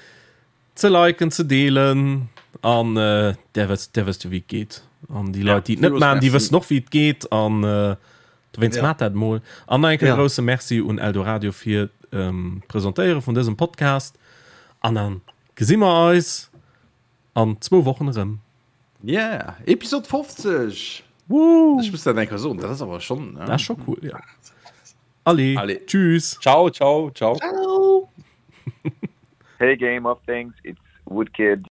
ze liken, ze deelen an äh, der wësst der wësst jo wéi et geet. An déi Leit, déi et net maachen, déi wëssen och wéi et geet an äh, dowéinst ja. Maacht dat mol. An nach enke ja. grousse Merci un Eldoradio fir ähm, d'Presentéiere vun dësem Podcast. An dann gesi mer eis an zwou Wochen erëm. Yeah, Episode 50! Woo! Ech muss dat eng Kéier soen, dat ass awer schonn. Dat ass scho cool, ja. Allez, Allez. Tschüss. Ciao, ciao, ciao. Ciao. Hey Game of Things, it's Woodkid.